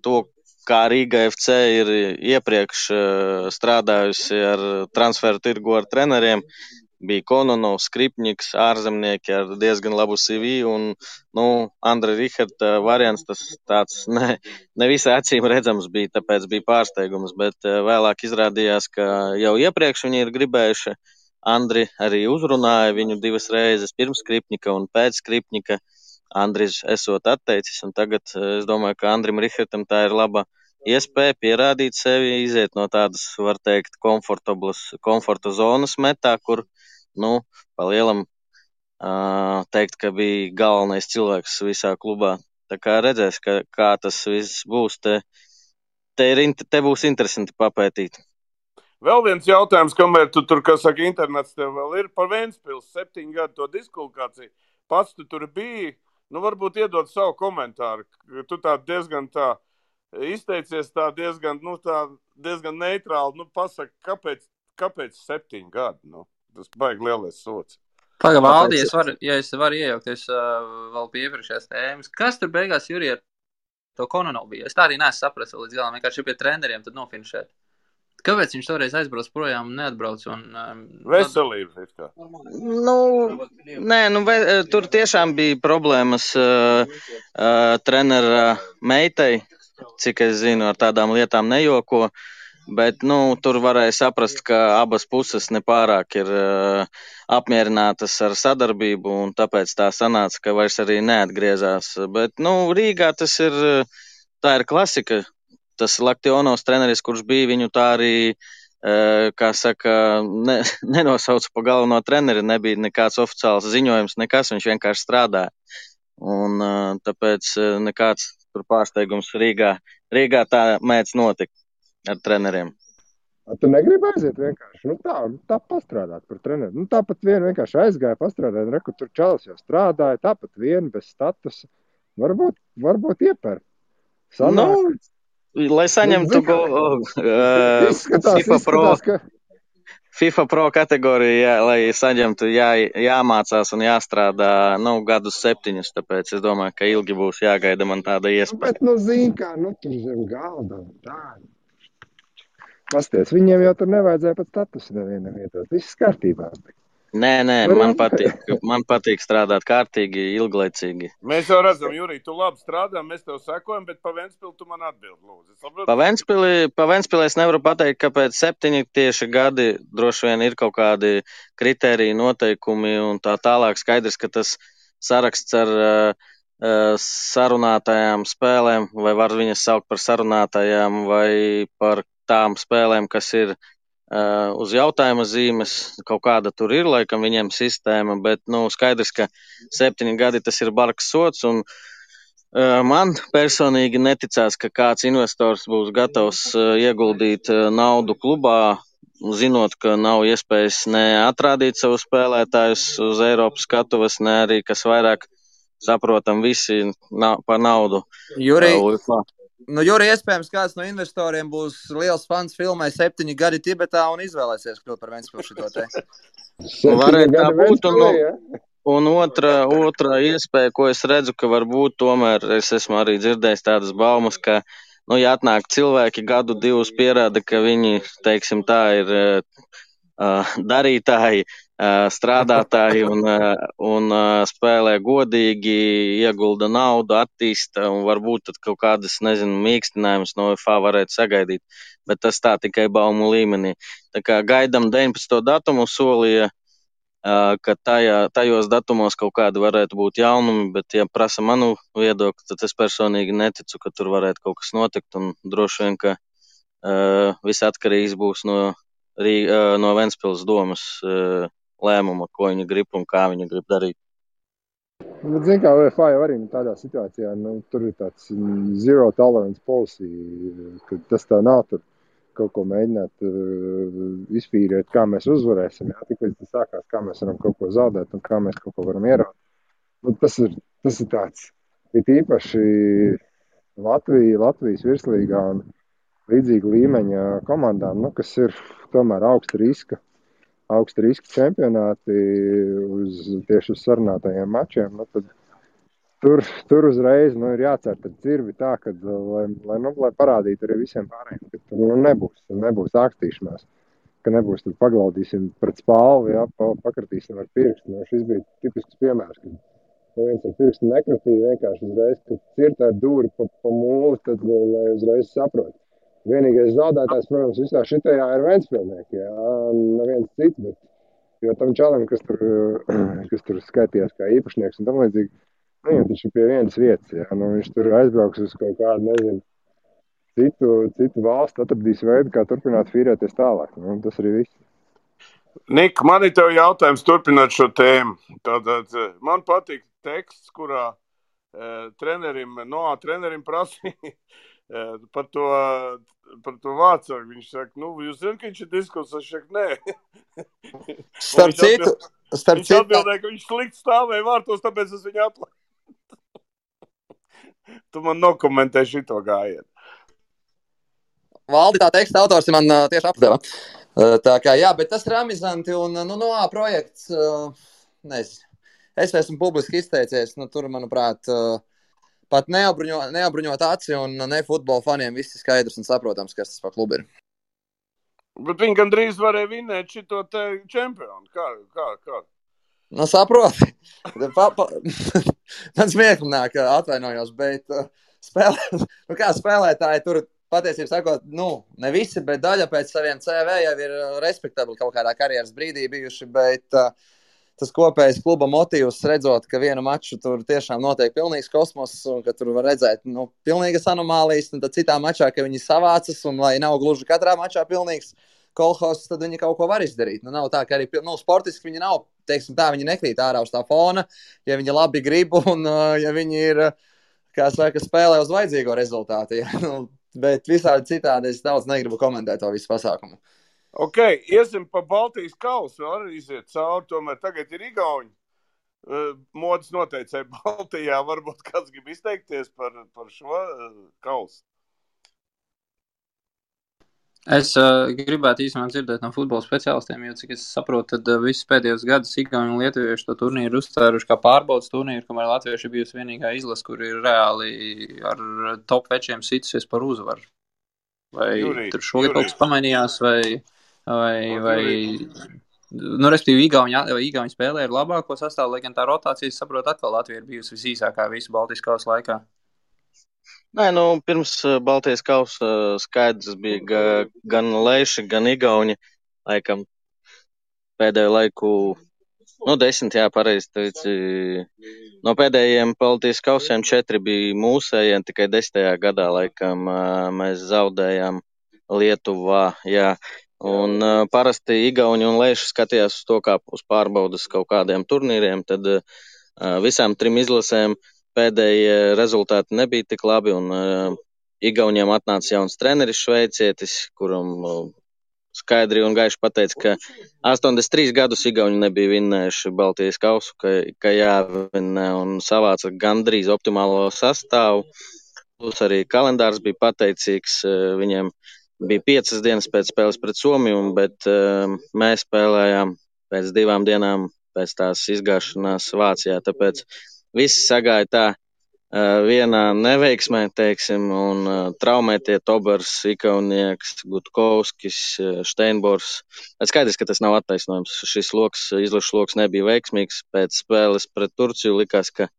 to, kā Rīga FC ir iepriekš strādājusi ar transferu tirgu ar treneriem. Bija Kononovs, Skripņiks, ārzemnieki ar diezgan labu CV, un, Andra Riharda variants tas tāds ne visai acīm redzams bija, tāpēc bija pārsteigums, bet vēlāk izrādījās, ka jau iepriekš viņi ir gribējuši. Andri arī uzrunāja viņu 2 reizes pirms Skripņika un pēc Skripņika. Andris esot atteicis, un tagad es domāju, ka Andrim Rihardam tā ir laba iespēja pierādīt sevi, iziet no tādas, var teikt, komforta zonas metā, kur pa lielam teikt, ka bija galvenais cilvēks visā klubā. Tā kā redzēs, kā tas viss būs. Te būs interesanti papētīt. Vēl viens jautājums, kamēr tu tur, kā saka, internets tev vēl ir par Ventspils 7 gadu to diskvalifikāciju. Pats tu tur biji, varbūt iedod savu komentāru. Tu tā diezgan tā izteicies tā diezgan neitrāli. Pasaka, kāpēc 7 gadu? Tas baigi lielais sots. Pagaid, Valdi, ja es varu iejaukties vēl pie iepriekšējās tēmas. Kas tur beigās, Jurij, ar to Kononovu bija? Es tā arī neesmu sapratis līdz galam, vienkārši pie treneriem tad nofinišēt. Kāpēc viņš toreiz aizbrauc projām un neatbrauc? Veselība. Tur tiešām bija problēmas trenera meitai, cik es zinu, ar tādām lietām nejoko. Bet, tur varēja saprast, ka abas puses nepārāk ir apmierinātas ar sadarbību, un tāpēc tā sanāca, ka vairs arī neatgriezās. Bet, Rīgā tā ir klasika. Tas Laktionovs treneris, kurš bija, viņu tā arī, kā saka, nenosauca pa galveno treneri, nebija nekāds oficiāls ziņojums, nekas, viņš vienkārši strādāja. Un tāpēc nekāds tur pārsteigums Rīgā tā mēdz notikt ar treneriem. Tu negribi aiziet vienkārši, tā pastrādāt par treneru. Tāpat vien vienkārši aizgāja pastrādāt, reku tur čalis jau strādāja, tāpat vien bez statusa. Varbūt ieper. Lai saņemtu FIFA Pro kategoriju, lai saņemtu, jāmācās un jāstrādā, gadus 7, tāpēc es domāju, ka ilgi būs jāgaida man tāda iespēja. Bet, zini kā, tur zem galda un tā. Pasties, viņiem jau tur nevajadzēja pat statusu nevienam ietot. Viss kārtībā. Nē, man patīk strādāt kārtīgi, ilglaicīgi. Mēs jau redzam, Jurij, tu labi strādā, mēs tev sekojam, bet pa Ventspili tu man atbild, lūdzu. Pa Ventspili es nevaru pateikt, ka pēc 7 tieši gadi droši vien ir kaut kādi kritēriji, noteikumi un tā tālāk. Skaidrs, ka tas saraksts ar sarunātajām spēlēm, vai var viņas saukt par sarunātajām, vai par tām spēlēm, kas ir uz jautājuma zīmes. Kaut kāda tur ir, laikam, viņiem sistēma, bet, skaidrs, ka 7 gadi tas ir bargs sots, un man personīgi neticās, ka kāds investors būs gatavs ieguldīt naudu klubā, zinot, ka nav iespējas ne atrādīt savus spēlētājus uz Eiropas skatuves, ne arī, kas vairāk saprotam, visi par naudu. Juri, iespējams, kāds no investoriem būs liels fans filmai 7 gadi Tibetā un izvēlēsies kļūt par Ventspili šito te. Varētu tā būt, un otra iespēja, ko es redzu, ka varbūt tomēr es esmu arī dzirdējis tādas baumas, ka, ja atnāk cilvēki gadu divus pierāda, ka viņi, teiksim tā, ir darītāji, strādātāji un spēlē godīgi, iegulda naudu, attīsta, un varbūt tad kaut kādas, mīkstinājumus no FA varētu sagaidīt, bet tas tā tikai baumu līmenī. Tā kā gaidam 19. datumu, solīja, ka tajos datumos kaut kādi varētu būt jaunumi, bet, ja prasa manu viedokli, tad es personīgi neticu, ka tur varētu kaut kas notikt, un droši vien, ka viss atkarīgs būs no Ventspils domas lēmuma, ko viņi grib un kā viņi grib darīt. Bet, zin kā, UEFA jau arī tādā situācijā, tur ir tāds zero tolerance policy, ka tas tā nav tur kaut ko mēģināt izfīrēt, kā mēs uzvarēsim, tik līdz tas sākās, kā mēs varam kaut ko zaudēt un kā mēs kaut ko varam ieraugt. Tas ir tāds, it īpaši Latvijas virslīgā un līdzīga līmeņa komandām, kas ir tomēr augsta riska čempionāti tieši uz sarunātajiem mačiem, tad tur uzreiz ir jācer tad dzirvi tā, kad, lai parādītu arī visiem pārējiem, ka tur nebūs ākstīšanās, ka nebūs tur paglaudīsim pret spalvu, pakratīsim ar pirkstu. Šis bija tipisks piemērs, kad viens ar pirkstu nekratīja vienkārši uzreiz, kad cirta ar dūri pa mūli, tad lai uzreiz saprot. Vienīgais zaudētājs, protams, visā šitajā ir Ventspilnieki, neviens cits, bet jo tam čalam, kas tur skaitījās kā īpašnieks un tam līdzīgi, viņam taču pie vienas vietas, viņš tur aizbrauks uz kaut kādu, citu valstu, atradīs veidu, kā turpināt fīrēties tālāk. Tas arī viss. Nika, man ir tev jautājums turpināt šo tēmu. Tātad man patīk teksts, kurā trenerim prasīja par to vācāku. Viņš saka, jūs zināt, ka viņš ir diskusijs, es saku, nē. Starp citu. Viņš atbildēja, ka viņš slikti stāvēja vārtos, tāpēc es viņu atlaidu. Tu man nokomentē šito gājienu. Valdi, tā teksta autors man tieši apdeva. Tā kā, jā, bet tas ir amizanti un, projekts, nezinu. Es esmu publiski izteicies, tur, manuprāt, pat neapbruņot aci un ne futbola faniem viss ir skaidrs un saprotams, kas tas par klubu ir. Bet viņi gandrīz varēja vinēt šito te čempionu. Kā? Saproti. Man smieklīgi nāk, atvainojos, bet spēlētāji tur patiesībā sakot, ne visi, bet daļa pēc saviem CV jau ir respektabli kaut kādā karjeras brīdī bijuši, bet tas kopējais kluba motīvs redzot, ka vienu maču tur tiešām notiek pilnīgs kosmos un ka tur var redzēt, pilnīgas anomālijas, un tad citā mačā, ka viņi savācas un lai nav gluži katrā mačā pilnīgs kolhos, tad viņi kaut ko var izdarīt. Nav tā, ka arī sportiski viņi nav, teiksim tā, viņi nekrīt ārā uz tā fona, ja viņi labi grib un ja viņi ir, kā saka, spēlē uz vajadzīgo rezultātu. Ja? Bet visādi citādi es daudz negribu komentēt to visu pasākumu. Ok, iesim pa Baltijas kausu, arī iziet cauri, tomēr tagad ir igauņi. Modas noteicēja Baltijā, varbūt kāds grib izteikties par šo kausu. Es gribētu īstenībā dzirdēt no futbola speciālistiem, jo, cik es saprotu, tad visus pēdējos gadus Igauni un Lietuvieši to turnīru uzstāruši kā pārbaudas turnīru, kamēr Latvieši ir bijusi vienīgā izlase, kur ir reāli ar top večiem situsies par uzvaru. Vai tur šogad kaut kas pamainījās, vai respektīvi Igauni spēlē ir labāko sastāvu, lai gan tā rotācija, saprotu, atkal Latvija ir bijusi visīsākā visu Baltijas kausa laikā. Nē, pirms Baltijas kausa skaidrs bija gan Leiši, gan Igauni, laikam pēdējo laiku 10, jā, pareizi teici. No pēdējiem Baltijas kausiem 4 bija mūsējiem, tikai 10. gadā laikam mēs zaudējām Lietuvā, jā. Un parasti Igauni un Leiši skatījās uz to kā uz pārbaudas kaut kādiem turnīriem, tad visām 3 izlasēm pēdējie rezultāti nebija tik labi, un Igauniem atnāca jauns treneris šveicietis, kuram skaidri un gaiši pateica, ka 83 gadus Igauni nebija vinnējuši Baltijas kausu, ka jāvinnē, un savāca gandrīz optimālo sastāvu. Plus arī kalendārs bija pateicīgs, viņiem bija 5 dienas pēc spēles pret Somiju, bet mēs spēlējām pēc 2 dienām pēc tās izgāšanās Vācijā, tāpēc viss sagāja tā vienā neveiksmē, teiksim, un traumētie Tobers, Ikaunieks, Gutkovskis, Steinbors. Skaidrs, ka tas nav attaisnojums. Šis izlašu loks nebija veiksmīgs. Pēc spēles pret Turciju likās, ka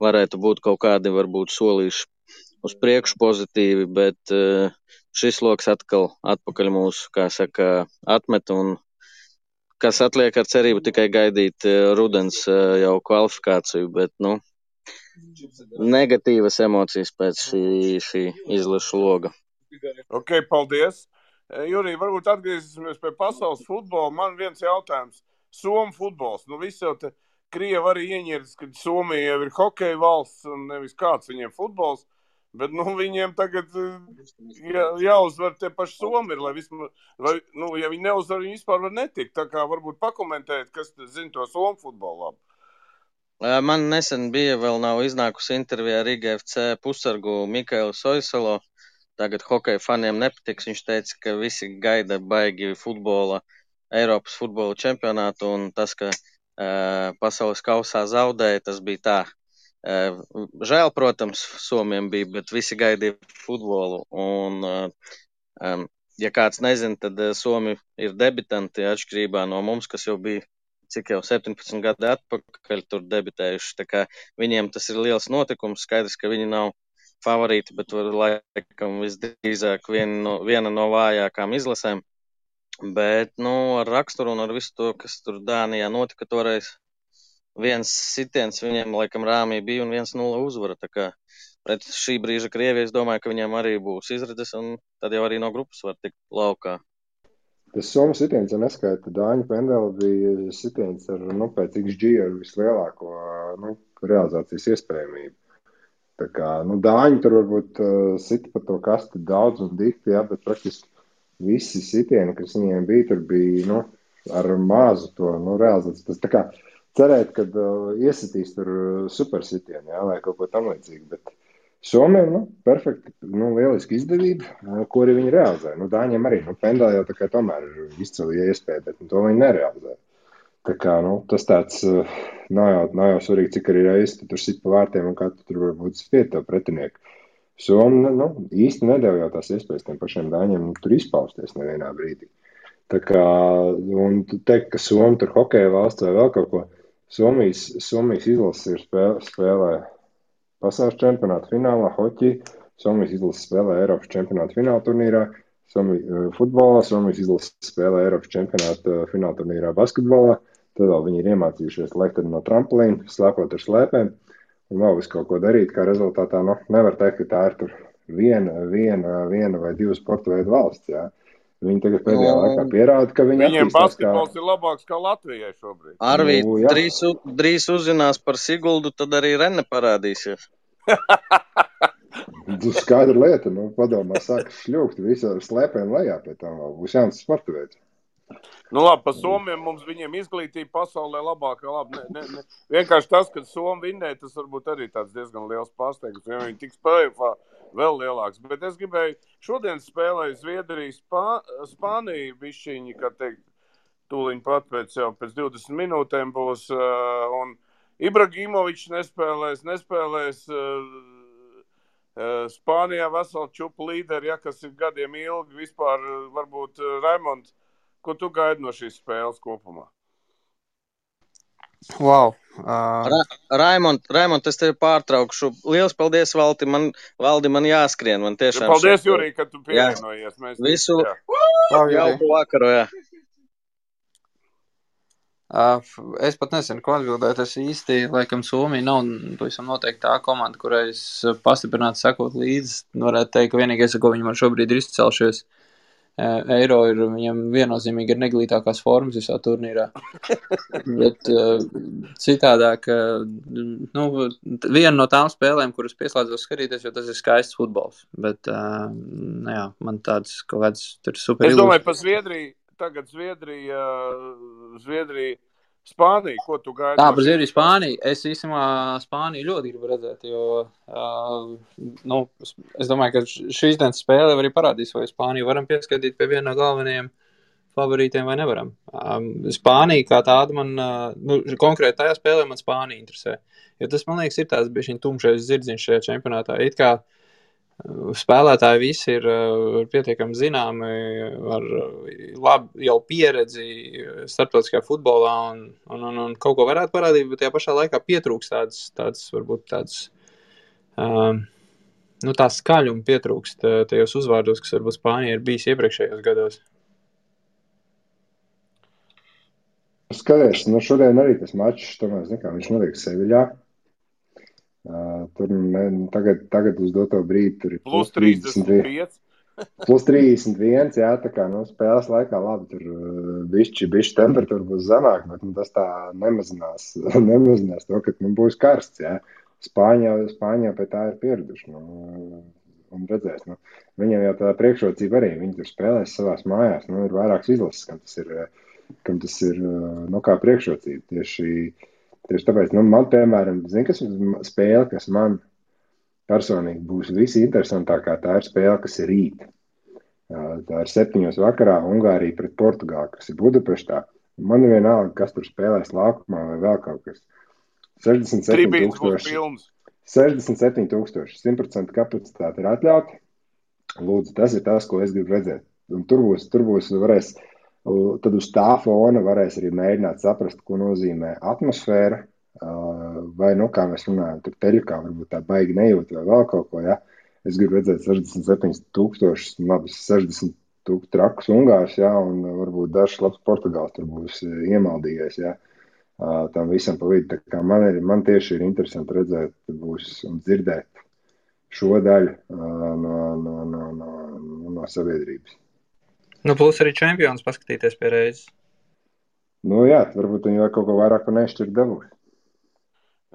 varētu būt kaut kādi varbūt solīši uz priekšu pozitīvi, bet šis loks atkal atpakaļ mūsu, kā saka, atmet, un kas atliek ar cerību tikai gaidīt rudens jau kvalifikāciju, bet, negatīvas emocijas pēc šī izlašu loga. Ok, paldies. Jurij, varbūt atgriezīsimies pie pasaules futbola. Man viens jautājums. Somu futbols. Visi jau te Krievi arī ieņirdas, ka Somija jau ir hokeja valsts un nevis kāds viņiem futbols. Bet viņiem tagad jāuzvar tie paši Somi ir, lai vismaz, ja viņi neuzvar, viņi vispār var netikt. Tā kā varbūt pakomentēt, kas zina to Somu futbolu labi. Man nesen bija, vēl nav iznākusi intervija ar IGFC pussargu Mikailu Soisalo. Tagad hokeja faniem nepatiks. Viņš teica, ka visi gaida baigi futbola, Eiropas futbola čempionātu, un tas, ka pasaules kausā zaudēja, tas bija tā. Žēl, protams, Somiem bija, bet visi gaidīja futbolu. Un, ja kāds nezina, tad Somi ir debitanti atšķirībā no mums, kas jau bija cik jau 17 gadi atpakaļ tur debitējuši. Tā kā viņiem tas ir liels notikums. Skaidrs, ka viņi nav favorīti, bet laikam visdrīzāk viena no vājākām izlasēm. Bet, ar raksturu un ar visu to, kas tur Dānijā notika toreiz, viens sitiens viņiem laikam rāmī bija un 1-0 uzvara. Tā kā pret šī brīža Krieviju es domāju, ka viņiem arī būs izredzes, un tad jau arī no grupas var tikt laukā. Tas Somu sitiens, ja neskaita, Dāņu pendeli bija sitiens ar, pēc XG ar vislielāko, realizācijas iespējamību. Tā kā, Dāņi tur varbūt sita pa to kasti daudz un dikti, jā, bet praktiski visi sitieni, kas viņiem bija, tur bija, ar mazu to, realizāciju. Tas tā kā cerēt, kad iesitīs tur super sitieni, jā, vai kaut ko tam līdzīgi, bet Somiem, perfekti, lieliski izdevība, ko arī viņi realizē. Dāņiem arī, pendeli jau tā kā tomēr ir izcili iespēja, bet to viņi nerealizē. Tā kā, tas tāds nav jau svarīgi, cik arī reizi tu tur sit pa vārtiem un kā tu tur varbūt spiet tev pretinieku. Somi, īsti nedēļ jau tās iespējas tiem pašiem Dāņiem tur izpausties nevienā brīdī. Tā kā, un tu teikt, ka Somi tur hokeja valsts vai vēl kaut ko, Somijas izlases ir spēlē pasaules čempionāta finālā, hoķī, Somijas izlases spēlē Eiropas čempionāta fināla turnīrā, futbolā, Somijas izlases spēlē Eiropas čempionāta fināla turnīrā basketbolā, tad vēl viņi ir iemācījušies lekt no trampolīna, slēpot ar slēpēm, un vēl visu kaut ko darīt, kā rezultātā, nevar teikt, ka tā ir tur viena vai 2 sporta veidu valsts, jā. Viņi tagad pēdējā laikā pierāda, ka viņi Viņiem basketbols ir labāks kā Latvijai šobrīd. Arvīt, drīz uzzinās par Siguldu, tad arī Rene parādīsies. Skaidra lieta, padomā, sāk šļūkt visu ar slēpēm lejā, pēc tam vēl būs jauns sporta veids. Labi, pa Somiem mums viņiem izglītība pasaulē labākā, labi, ne. Vienkārši tas, ka Somi vinnēja, tas varbūt arī tāds diezgan liels pārsteigums, ja viņi tiks play-offā vēl lielāks. Bet es gribēju, šodien spēlēju Zviedriju, Spāniju bišķiņi, kā teikt, tūliņ pat pēc 20 minūtēm būs, un Ibrahimovičs nespēlēs Spānijā veselu čupu līderi, kas ir gadiem ilgi vispār, varbūt Raimond. Ko tu gaidi no šīs spēles kopumā? Wow. Raimond, es tevi pārtraukšu. Liels paldies, Valdi, man jāskrien. Man tiešām paldies, Jurij, ka tu pievienojies. Visu jauku vakaru, jā. Es pat nezinu, ko atbildēt. Es īsti, laikam, Somija nav pavisam noteikti tā komanda, kurai es pastiprināti sekot līdzi. Varētu teikt, ka vienīgais, ar ko viņi man šobrīd ir izcelšies, Eiro ir viņam viennozīmīgi ir neglītākās formas visā turnīrā. Bet citādāk, viena no tām spēlēm, kuras pieslēdzos skatīties, jo tas ir skaists futbols. Bet, jā, man tāds kaut kāds tur super Es ilūzijas. domāju par Zviedriju. Tagad Zviedrija, Spānija. Ko tu gaidi? Tā, par Zviedriju, Spāniju. Es īstenībā Spāniju ļoti gribu redzēt, jo es domāju, ka šīs dienas spēle arī parādīs, vai Spāniju varam pieskatīt pie viena no galvenajiem favorītiem vai nevaram. Spānija kā tāda man, konkrēti tajā spēlē man Spānija interesē. Jo tas, man liekas, ir tāds bišķiņ tumšais zirdziņš šajā čempionātā. It kā spēlētāji visi ir pietiekami zināmi, ar labi jau pieredzi starptautiskajā futbolā un kaut ko varētu parādīt, bet tajā pašā laikā pietrūks tāds varbūt tāds, tā skaļuma pietrūkst tajos uzvārdos, kas varbūt Spānija ir bijis iepriekšējos gados. Skaties, šodien arī tas mačs, tomēr, viņš notiek Seviļā. Tur tagad uz doto brīdi tur ir plus 35. Plus 31, jā, tā kā spēles laikā labi, tur bišķi temperatūra būs zemāk, bet tas tā nemazinās to, ka būs karsts, jā. Spāņā pie tā ir pieraduši, un redzēs, viņiem jau tā priekšrocība arī, viņi tur spēlēs savās mājās, ir vairākas izlases, kam tas ir kā priekšrocība, tieši tāpēc, man, piemēram, kas spēle, kas man personīgi būs visinteresantākā, tā ir spēle, kas ir rīt. Tā ir 7 vakarā Ungārija pret Portugāli, kas ir Budapeštā. Man ir vienalga, kas tur spēlēs laukumā vai vēl kaut kas. 67,000. 67,000. 100% kapacitāte ir atļauta. Lūdzu, tas ir tas, ko es gribu redzēt. Un tur būs varēs, tad uz tā fona varēs arī mēģināt saprast, ko nozīmē atmosfēra, vai, kā mēs runājam, tur teļukā varbūt tā baigi nejūt vai vēl kaut ko, ja. Es gribu redzēt 67,000, labi, 60,000 trakus Ungārs, ja, un varbūt dažs labs Portugāls tur būs iemaldījies, ja, tam visam pa vidu. Tā kā man tieši ir interesanti redzēt būs un dzirdēt šo daļu no sabiedrības. Plus arī čempions paskatīties pie reizes. Jā, varbūt viņi vēl kaut ko vairāk un nešķirt dabūs.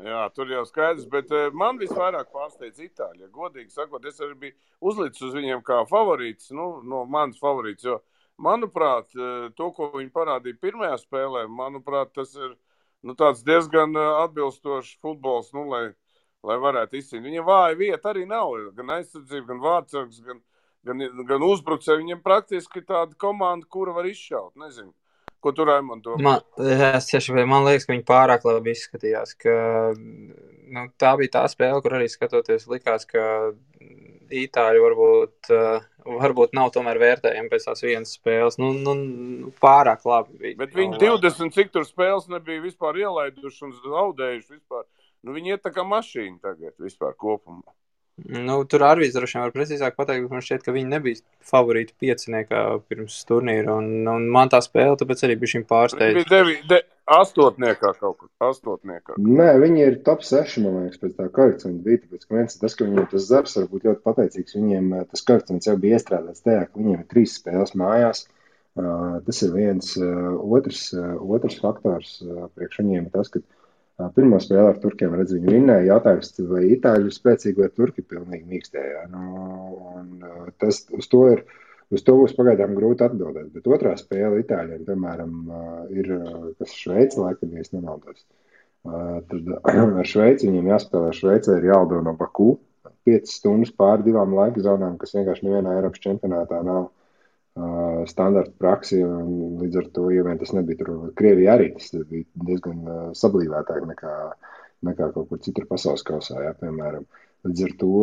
Jā, tur jau skaidrs, bet man visvairāk pārsteidz Itāļi. Godīgi sakot, es arī biju uzlicis uz viņiem kā favorīts, no manas favorīts, jo, manuprāt, to, ko viņi parādīja pirmajā spēlē, manuprāt, tas ir tāds diezgan atbilstošs futbols, lai varētu izcīnīt. Viņiem vāja vieta arī nav, gan aizsardzība, gan vārdsargs, gan uzbrucēji. Viņiem praktiski tāda komanda, kura var izšaut, nezinu. Ko tu, Raimond, domā? Man liekas, ka viņi pārāk labi izskatījās, ka tā bija tā spēle, kur arī skatoties likās, ka Itāļi varbūt nav tomēr vērtējami pēc tās vienas spēles. Pārāk labi bija. Bet viņi 20 cik tur spēles nebija vispār ielaiduši un zaudējuši vispār. Viņi iet tā kā mašīna tagad vispār kopumā. Tur Arvīds droši vien var precīzāk pateikt, bet man šķiet, ka viņi nebija favorīti pieciniekā pirms turnīra, un man tā spēle tāpēc arī bija šim pārsteidz. Viņi bija 8. kaut kur, 8. Nē, viņi ir top 6, man liekas, pēc tā koeficienta bija, tāpēc, ka tas, ka viņiem tas Zars var būt ļoti pateicīgs, viņiem tas koeficients jau bija iestrādāts tajā, ka viņiem ir 3 spēles mājās. Tas ir viens, otrs faktors priekš viņiem ir tas, ka pirmo spēli ar turkiem, redz, viņi vinnēja. Jautājums, vai Itāļi ir spēcīgi, vai turki pilnīgi mīkstējā. Uz to būs pagaidām grūti atbildēt. Bet otrā spēle Itāļiem, piemēram, ir, kas Šveice, laikam, ja es nemaldos. Tad ar Šveici viņiem jāspēlē. Šveicē ir jālido no Baku 5 stundas pāri 2 laika zonām, kas vienkārši nevienā Eiropas čempionātā nav standarta praksi, un līdz ar to, ja vien tas nebija tur Krievijā arī, tas bija diezgan sablīvētāk nekā kaut kur citur pasaules kausā, jā, piemēram. Līdz ar to,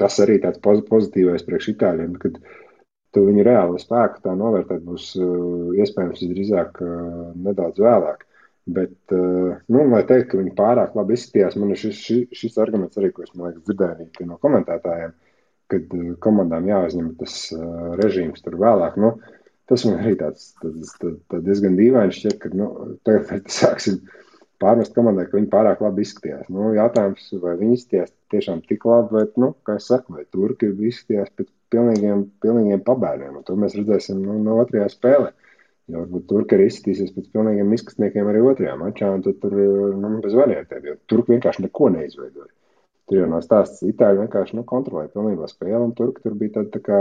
tas arī tāds pozitīvais priekš Itāļiem, kad tu viņu reāli spēku tā novērtēt būs iespējams drīzāk nedaudz vēlāk. Bet, lai teikt, ka viņi pārāk labi izskatījās, man ir šis arguments arī, ko es, man liekas, dzirdēju no komentētājiem, kad komandām jāuzņem tas režīms tur vēlāk. Tas man arī tāds diezgan dīvaini šķiet, ka tagad sāksim pārmest komandai, ka viņi pārāk labi izskatījās. Jautājums, vai viņi izskatījās tiešām tik labi, vai, kā es saku, vai turki izskatījās pēc pilnīgiem pabērniem. Un to mēs redzēsim no otrajā spēlē. Jo varbūt turki arī izskatīsies pēc pilnīgiem izskatniekiem arī otrajā mačā, un tad tur bez variantiem, jo turki vienkārši neko neizveidoja. Tur jau nav stāsts, itāļi vienkārši kontrolēja pilnībā spēli, un turki tur bija tāda tā kā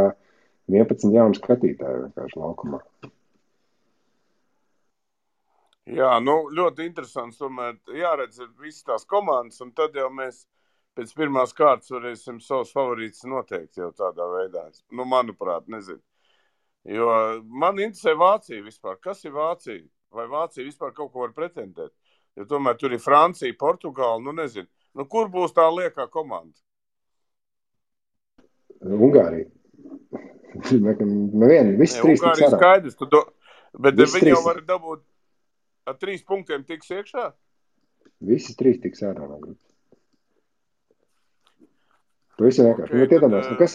11 jaunu skatītāju vienkārši laukumā. Jā, ļoti interesants. Tomēr jāredz visas tās komandas, un tad jau mēs pēc pirmās kārtas varēsim savus favorītus noteikt jau tādā veidā. Manuprāt, nezinu. Jo man interesē Vācija vispār. Kas ir Vācija? Vai Vācija vispār kaut ko var pretendēt? Jo tomēr tur ir Francija, Portugāla, nezinu. Kur būs tā liekā komanda? Ungārija. Visi trīs tiks ārā. Skaidrs, bet viņi jau var dabūt ar 3 punktiem tiks iekšā? Visi 3 tiks ārā no grupas. Pavisam vienkārši.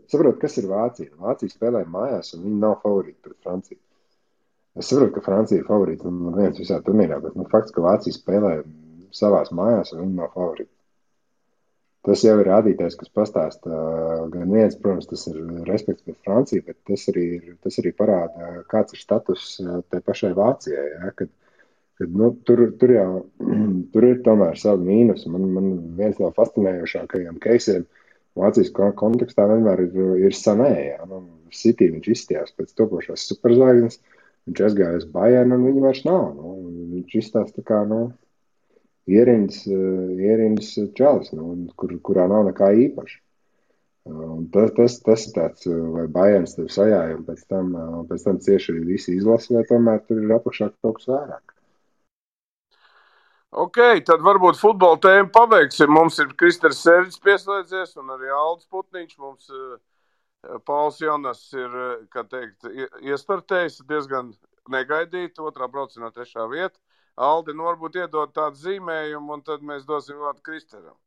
Saprot, kas ir Vācija? Vācija spēlē mājās, un viņi nav favorīti pret Franciju. Es saprotu, ka Francija ir favorīti un viens visā turnīrā, bet fakts, ka Vācija spēlē savās mājās, un viņi nav favorīti. Tas jau ir rādītājs, kas pastāsta gan viens, protams, tas ir respekts pret Franciju, bet tas arī parāda, kāds ir status tai pašai Vācijai. Ja? Kad tur ir tomēr savi mīnus. Man viens no fascinējošākajiem keisiem Vācijas kontekstā vienmēr ir Sané. Ja? City viņš izstījās pēc topošās superzvaigznes, viņš aizgāja uz Bayern, un viņi vairs nav. Viņš izstās tā kā, ierindas čalis, kurā nav nekā īpaša. Tas ir tāds, vai Bayerns tev sajāja, un pēc tam cieši arī visi izlasa, vai tomēr tur ir apakšā kaut kas vairāk. Ok, tad varbūt futbola tēmu pabeigsim. Mums ir Kristers Sērģis pieslēdzies un arī Aldis Putniņš. Mums Pauls Jonas ir, iestartējis diezgan negaidīt, 2. braucienā 3. vieta. Aldi, varbūt iedod tādu zīmējumu, un tad mēs dosim vārdu Kristeram.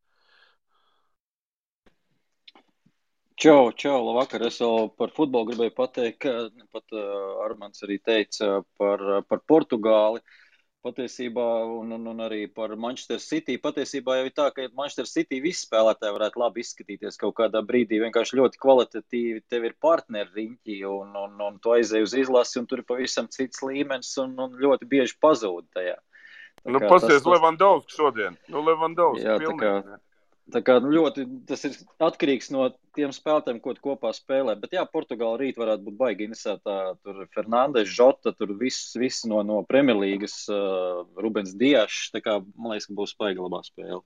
Čau, labvakar. Es vēl par futbolu gribēju pateikt, ka pat Armands arī teica par Portugāli. Patiesībā, un arī par Manchester City. Patiesībā jau ir tā, ka Manchester City visi spēlētāji varētu labi izskatīties kaut kādā brīdī. Vienkārši ļoti kvalitatīvi tev ir partneri riņķi, un tu aizēji uz izlasi, un tur ir pavisam cits līmenis, un ļoti bieži pazūd tajā. Pasies Levandovski šodien. Levandovski jā, pilnīgi. Tā kā ļoti tas ir atkarīgs no tiem spēlētājiem, ko tu kopā spēlē. Bet jā, Portugāla rīt varētu būt baigi interesētā. Tur Fernandes, Žota, tur viss no Premjerlīgas, Rubens Diašs. Tā kā, man liekas, ka būs baigi labā spēle.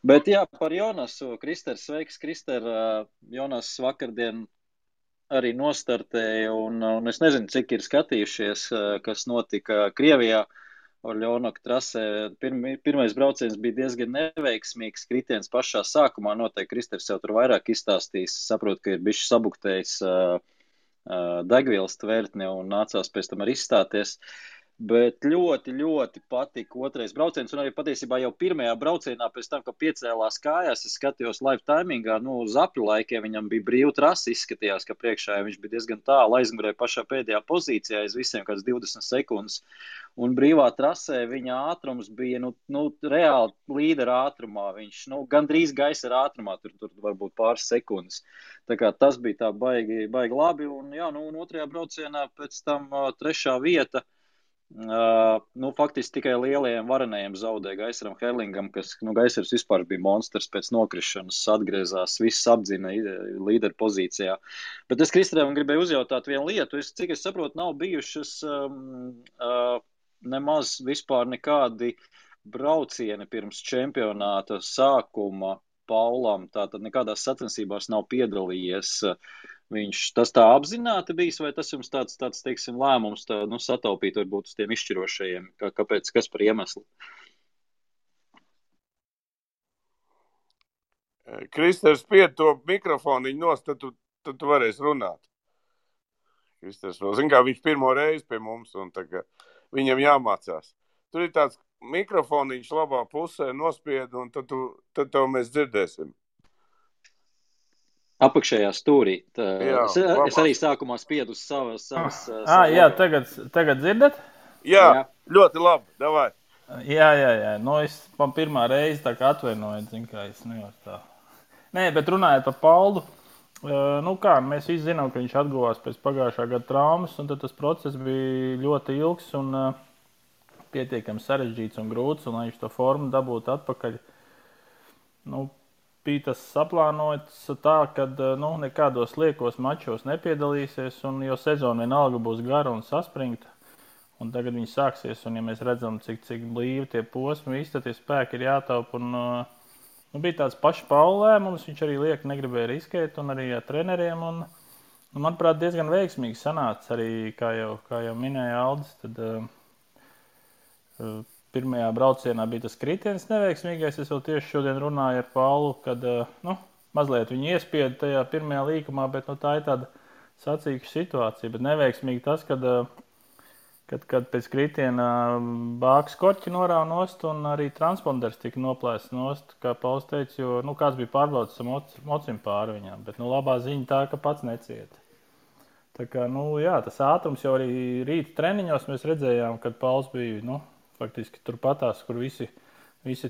Bet jā, par Jonasu. Kristers, sveiks, Krister. Jonas vakardien arī nostartēja, un es nezinu, cik ir skatījušies, kas notika Krievijā. Orļonoka trasē pirmais brauciens bija diezgan neveiksmīgs, kritiens pašā sākumā, noteikti Kristers jau tur vairāk izstāstīs, saprot, ka ir bišķi sabuktējis degvielas tvertni un nācās pēc tam arī izstāties. Bet ļoti, ļoti patika otrais brauciens, un arī patiesībā jau pirmajā braucienā pēc tam, ka piecēlās kājās, es skatījos live timingā, uz apļu laikiem viņam bija brīva trasa, izskatījās, ka priekšā viņš bija diezgan tālu, aizmugurē pašā pēdējā pozīcijā, aiz visiem kāds 20 sekundes, un brīvā trasē viņa ātrums bija, reāli līdera ātrumā, viņš, gandrīz gaisa ātrumā, tur varbūt pāris sekundes. Tā kā tas bija tā baigi labi, un jā, un otrajā braucienā pēc tam 3. vieta. Faktiski tikai lielajiem varenajiem zaudēja Gaisaram Herlingam, kas, Gaisars vispār bija monstrs pēc nokrišanas, atgriezās, viss apdzina līderu pozīcijā. Bet es Kristeram gribēju uzjautāt vienu lietu, cik es saprotu, nav bijušas nemaz vispār nekādi braucieni pirms čempionāta sākuma Paulam, tātad nekādās sacensībās nav piedalījies. Viņš tas tā apzināti bijis, vai tas jums tāds teiksim, lēmums sataupīt varbūt uz tiem izšķirošajiem? Kāpēc, kas par iemeslu? Kristers, pied to mikrofoniņu nost, tad tu varēsi runāt. Kristers vēl zin, kā viņš pirmo reizi pie mums, un tagad viņam jāmācās. Tur ir tāds mikrofoniņš labā pusē nospied, un tad tev mēs dzirdēsim. Apakšējā stūrī. Jā, Es labās. arī sākumā spiedu uz savas Jā, logo. tagad dzirdat? Jā, Jā. ļoti labi, davai. Jā. Nu, es man pirmā reize tā kā atvainoju, zinu, kā es nevaru tā. Nē, bet runājot par Paulu, nu kā, mēs visi zinām, ka viņš atguvās pēc pagājušā gada traumas, un tad tas process bija ļoti ilgs un pietiekami sarežģīts un grūts, un lai viņš to formu dabūtu atpakaļ, nu, bija tas saplānots tā, ka nekādos liekos mačos nepiedalīsies, un jo sezona vienalga būs gara un saspringta. Un tagad viņi sāksies, un ja mēs redzam, cik blīvi tie posmi, visi tie spēki ir jātaupa. Bija tāds pašs Paula lēmums, viņš arī liek negribēja riskēt, un arī ar treneriem. Manuprāt, diezgan veiksmīgi sanāca arī, kā jau minēja Aldis, tad pirmajā braucienā bija tas kritiens neveiksmīgais. Es vēl tieši šodien runāju ar Paulu, kad mazliet viņu iespieda tajā pirmajā līkumā, bet tā ir tāda sacīkša situācija. Bet neveiksmīgi tas, kad pēc kritiena bāks korķi norāva nost un arī transponders tika noplēsts nost, kā Pauls teica, jo kāds bija pārbaudis ar mocim pāri viņām. Bet labā ziņa tā, ka pats necieta. Tā kā, jā, tas ātrums jau arī rīta treniņos mēs redzējām, kad Pauls bija, faktiski turpatās, kur visi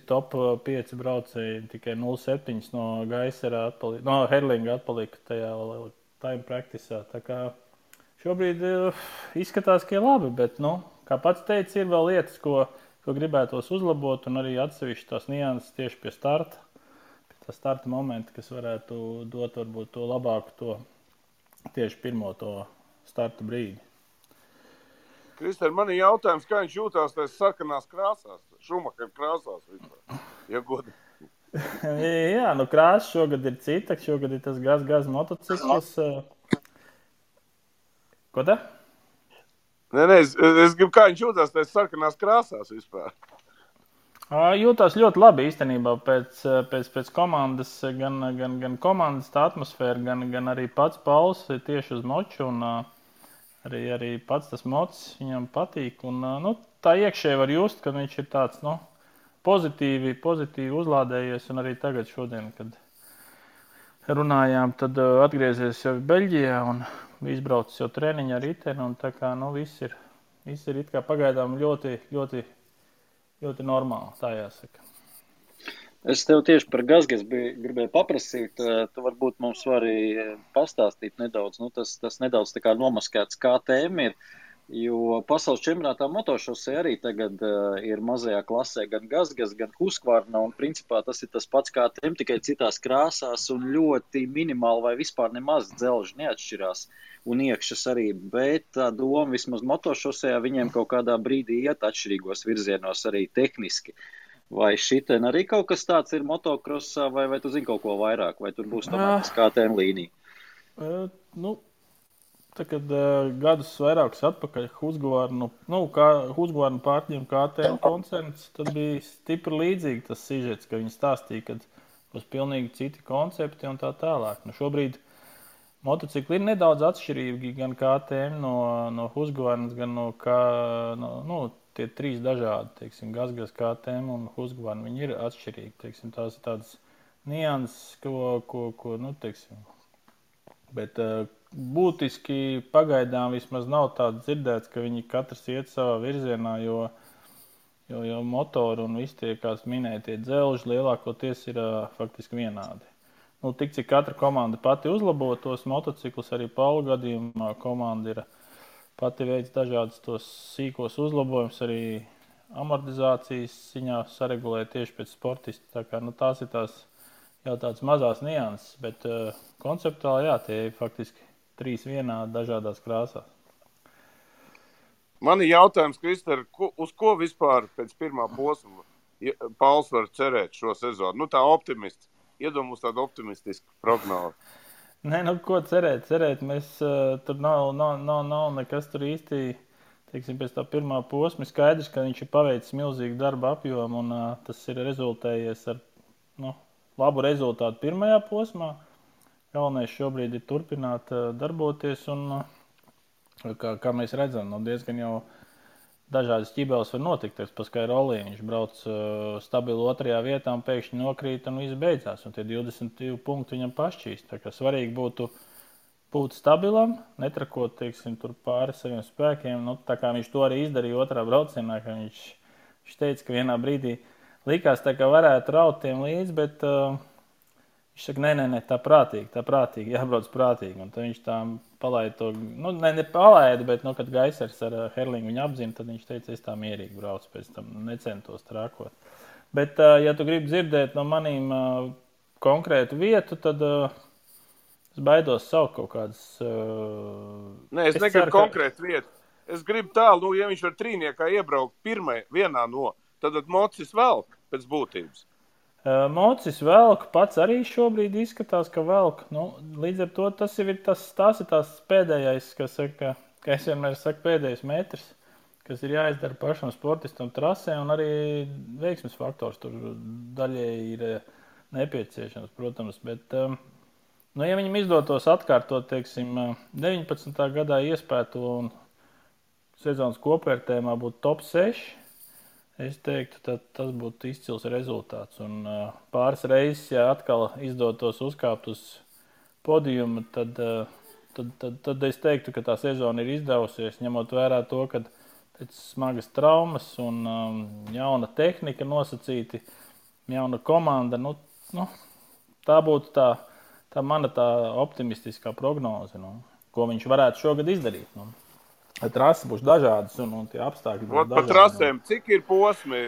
top 5 braucēji tikai 0,7 no Gaisera atpalika, no Herlinga atpalika tajā time practiceā. Tā kā šobrīd izskatās, ka ir labi, bet, kā pats teica, ir vēl lietas, ko gribētos uzlabot, un arī atsevišķi tās nianses tieši pie starta, pie tā starta momenta, kas varētu dot varbūt to labāku tieši pirmo to starta brīdi. Krister, man ir jautājums, kā viņš jūtās tās sarkanās krāsās, Šumacher krāsās vispār, ja godi? Jā, krāsa šogad ir cita, šogad ir tas gaz motocikls. Ko tā? Nē, es gribu, kā viņš jūtās tās sarkanās krāsās vispār. Jūtās ļoti labi īstenībā pēc komandas, gan komandas tā atmosfēra, gan arī pats Pauls tieši uz moču, un arī pats tas mocs viņam patīk. Un, tā iekšēji var just, ka viņš ir tāds pozitīvi uzlādējies, un arī tagad šodien, kad runājām, tad atgriezies jau Beļģijā un izbraucis jau treniņu ar riteni, un tā kā viss ir it kā pagaidām ļoti, ļoti, ļoti normāli, tā jāsaka. Es tev tieši par Gazgas gribēju paprasīt, tu varbūt mums vari pastāstīt nedaudz, tas nedaudz tā kā nomaskēts KTM ir, jo pasaules čempionātā motošosē arī tagad ir mazajā klasē gan Gazgas, gan Husqvarna, un principā tas ir tas pats KTM, tikai citās krāsās un ļoti minimāli vai vispār nemaz dzelži neatšķirās un iekšas arī, bet tā doma vismaz motošosējā viņiem kaut kādā brīdī iet atšķirīgos virzienos arī tehniski. Vai šitien arī kaut kas tāds ir motokrosā, vai tu zini kaut ko vairāk, vai tur būs tomēr tas KTM līnija? Tā, kad gadus vairākus atpakaļ Husqvarnu pārņem KTM koncerns, tad bija stipri līdzīgi tas sižets, ka viņi stāstīja, ka būs pilnīgi citi koncepti un tā tālāk. Šobrīd motocikli ir nedaudz atšķirīgi gan KTM no Husqvarnas, gan tie 3 dažādi, teiksim, Gazgas, KTM un Husqvarna, viņi ir atšķirīgi, teiksim, tās ir tādas nianses, bet būtiski pagaidām vismaz nav tāds dzirdēts, ka viņi katrs iet savā virzienā, jo motori un visi tie, kāds minēja, tie dzelži lielākoties ir faktiski vienādi. Tik cik katra komanda pati uzlabo tos motociklus, arī Paula gadījumā komanda ir pati veids dažādus tos sīkos uzlabojumus, arī amortizācijas ziņā saregulē tieši pēc sportista. Tā kā, tās ir tās jau tādas mazās nianses, bet konceptuāli, jā, tie ir faktiski 3 vienādi dažādās krāsās. Man ir jautājums, Krister, uz ko vispār pēc pirmā posma Pauls var cerēt šo sezonu? Tā optimists. Iedomājos tādu optimistisku prognozi. Nē, ko cerēt? Mēs tur nav nekas tur īsti, teiksim, pēc tā pirmā posma. Skaidrs, ka viņš ir paveicis milzīgu darba apjomu, un tas ir rezultējies ar labu rezultātu pirmajā posmā. Galvenais šobrīd ir turpināt darboties, un kā mēs redzam, diezgan jau dažādas ķibeles var notikt. Pa Skairolī viņš brauc stabilu 2. vietā un pēkšņi nokrīt un viss beidzās. Un tie 22 punkti viņam pašķīst. Tā kā svarīgi būtu būt stabilam, netrakot, teiksim, tur pāri saviem spēkiem. Nu, tā kā viņš to arī izdarīja otrā braucienā, ka viņš teica, ka vienā brīdī likās tā, ka varētu raut tiem līdzi, bet viņš saka, nē, tā prātīgi, jābrauc prātīgi. Un tad viņš tā palaida to, nu, ne palaida, bet, nu, kad Gaisers ar Herlingu viņu apzina, tad viņš teica, es tā mierīgi braucu, pēc tam necentos trākot. Bet, ja tu gribi dzirdēt no manīm konkrētu vietu, tad es baidos saukt kaut kādas... Nē, es negribu konkrētu vietu. Es gribu tālu, ja viņš var trīniekā iebraukt vienā no, tad Mocis velk pēc būtības. Mocis velk, pats arī šobrīd izskatās, ka velk. Nu, līdz ar to tas ir tās pēdējais, ka es vienmēr saku pēdējais metrs, kas ir jāizdara pašam sportistam trasē, un arī veiksmes faktors tur daļēji ir nepieciešams, protams, bet... Nu, ja viņam izdotos atkārtot, teiksim, 19. gadā iespēto un sezonas kopvērtējumā būtu top 6, es teiktu, tad tas būtu izcils rezultāts. Un pāris reizes, ja atkal izdotos uzkāpt uz podiumu, tad es teiktu, ka tā sezona ir izdevusies, ņemot vērā to, ka pēc smagas traumas un jauna tehnika nosacīti, jauna komanda, nu, tā būtu tā mana optimistiskā prognoze, ko viņš varētu šogad izdarīt. Trasi būs dažādas un tie apstākļi būs dažādi. Pa trasēm, cik ir posmi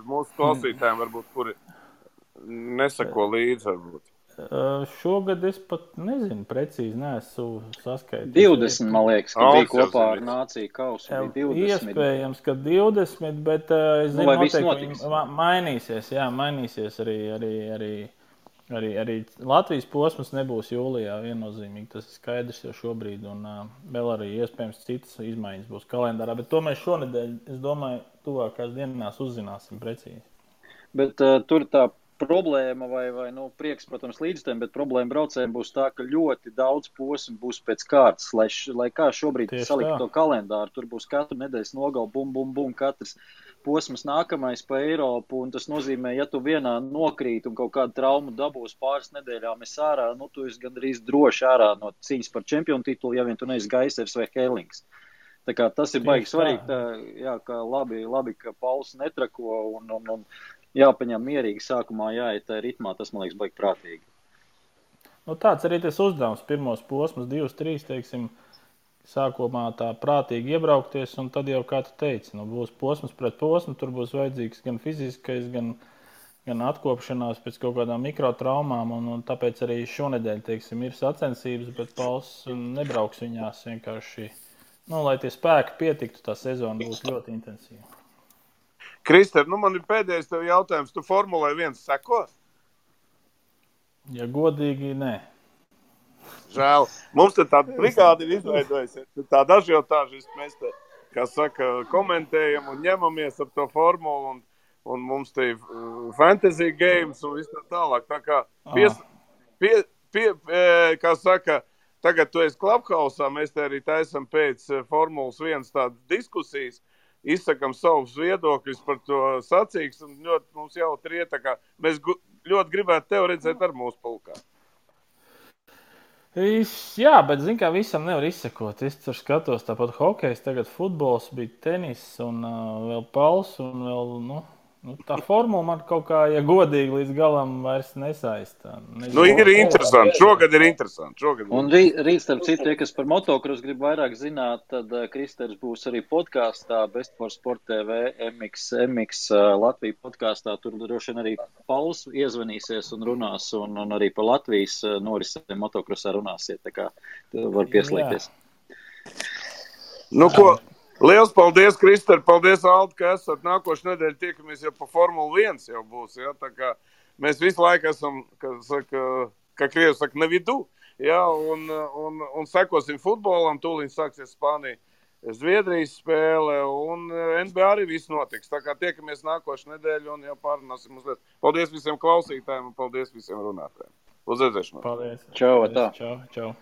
mūsu klausītājiem, varbūt, kuri nesako līdzi, varbūt? Šogad es pat nezinu, precīzi neesmu saskaitījis. 20, man liekas, ka bija kopā ar Nāciju kausu. 20. Iespējams, ka 20, bet es zinu, noteikti mainīsies. Jā, mainīsies arī Latvijas posms nebūs jūlijā viennozīmīgi. Tas ir skaidrs jau šobrīd, un vēl arī iespējams citas izmaiņas būs kalendārā. Bet to mēs šonedēļ, es domāju, tuvākās dienās uzzināsim precīzi. Bet tur tā problēma vai prieks, protams, līdztiem, bet problēma braucējiem būs tā, ka ļoti daudz posmu būs pēc kārtas, lai kā šobrīd salikt to kalendāru. Tur būs katru nedēļas nogalu, bum, katrs posms nākamais pa Eiropu, un tas nozīmē, ja tu vienā nokrīt un kaut kādu traumu dabūs pāris nedēļām ārā, tu esi gandrīz droši ārā no cīņas par čempionu titulu, ja vien tu neesi Gaisers vai Herlings. Tā kā tas ir baigi svarīgi, jā, ka labi, ka Pauls netrako un jāpaņem mierīgi sākumā, jāiet tā ritmā, tas, man liekas, baigi prātīgi. Tāds arī tas uzdevums, pirmos posmus, 2-3, teiksim, sākumā tā prātīgi iebraukties, un tad jau, kā tu teici, būs posms pret posmu, tur būs vajadzīgs gan fiziskais, gan atkopšanās pēc kaut kādām mikrotraumām, un tāpēc arī šonedēļ, teiksim, ir sacensības, bet Pauls nebrauks viņās vienkārši, lai tie spēki pietiktu, tā sezona būs ļoti intensīva. Krister, man ir pēdējais tev jautājums. Tu Formulai 1 seko? Ja godīgi, nē. Žēl. Mums te tāda brigāde ir izveidojusies. Tāda ažiotāžas mēs te, kā saka, komentējam un ņemamies ap to formulu un mums te ir fantasy games un viss tā tālāk. Tā kā kā saka, tagad tu esi Clubhouse-ā, mēs te arī taisam pēc Formulas 1 tādas diskusijas. Izsakam savus viedokļus par to sacīgs, un ļoti mums jautri iet, tā kā mēs ļoti gribētu tevi redzēt ar mūsu pulkā. Jā, bet zin kā visam nevar izsekot. Es tur skatos tāpat hokejs, tagad futbols, bija tenis un vēl Pauls un vēl, tā formula man kaut kā, ja godīgi līdz galam vairs nesaista. Ir interesanti. Šogad ir interesanti. Un rīt, starp citu, kas par motokrosu grib vairāk zināt, tad Kristers būs arī podkāstā Best for Sport TV, MX Latvija podkāstā. Tur droši vien arī Pauls iezvanīsies un runās, un arī par Latvijas norisēm motokrosā runāsiet, tā kā var pieslēgties. Liels paldies, Krister, paldies, Aldi, ka esat. Nākošu nedēļu tiekamies jau pa Formula 1 jau būs, ja? Tā kā mēs visu laiku esam, kā krievi saka, ne vidu, ja? Un sekosim futbolam, tūlīt sāksies Spānija, Zviedrijas spēle, un NBA arī viss notiks. Tā kā tiekamies nākošu nedēļu un jau pārunāsim uzliet. Paldies visiem klausītājiem un paldies visiem runātājiem. Uz redzēšanos. Paldies. Čau, tā. Čau.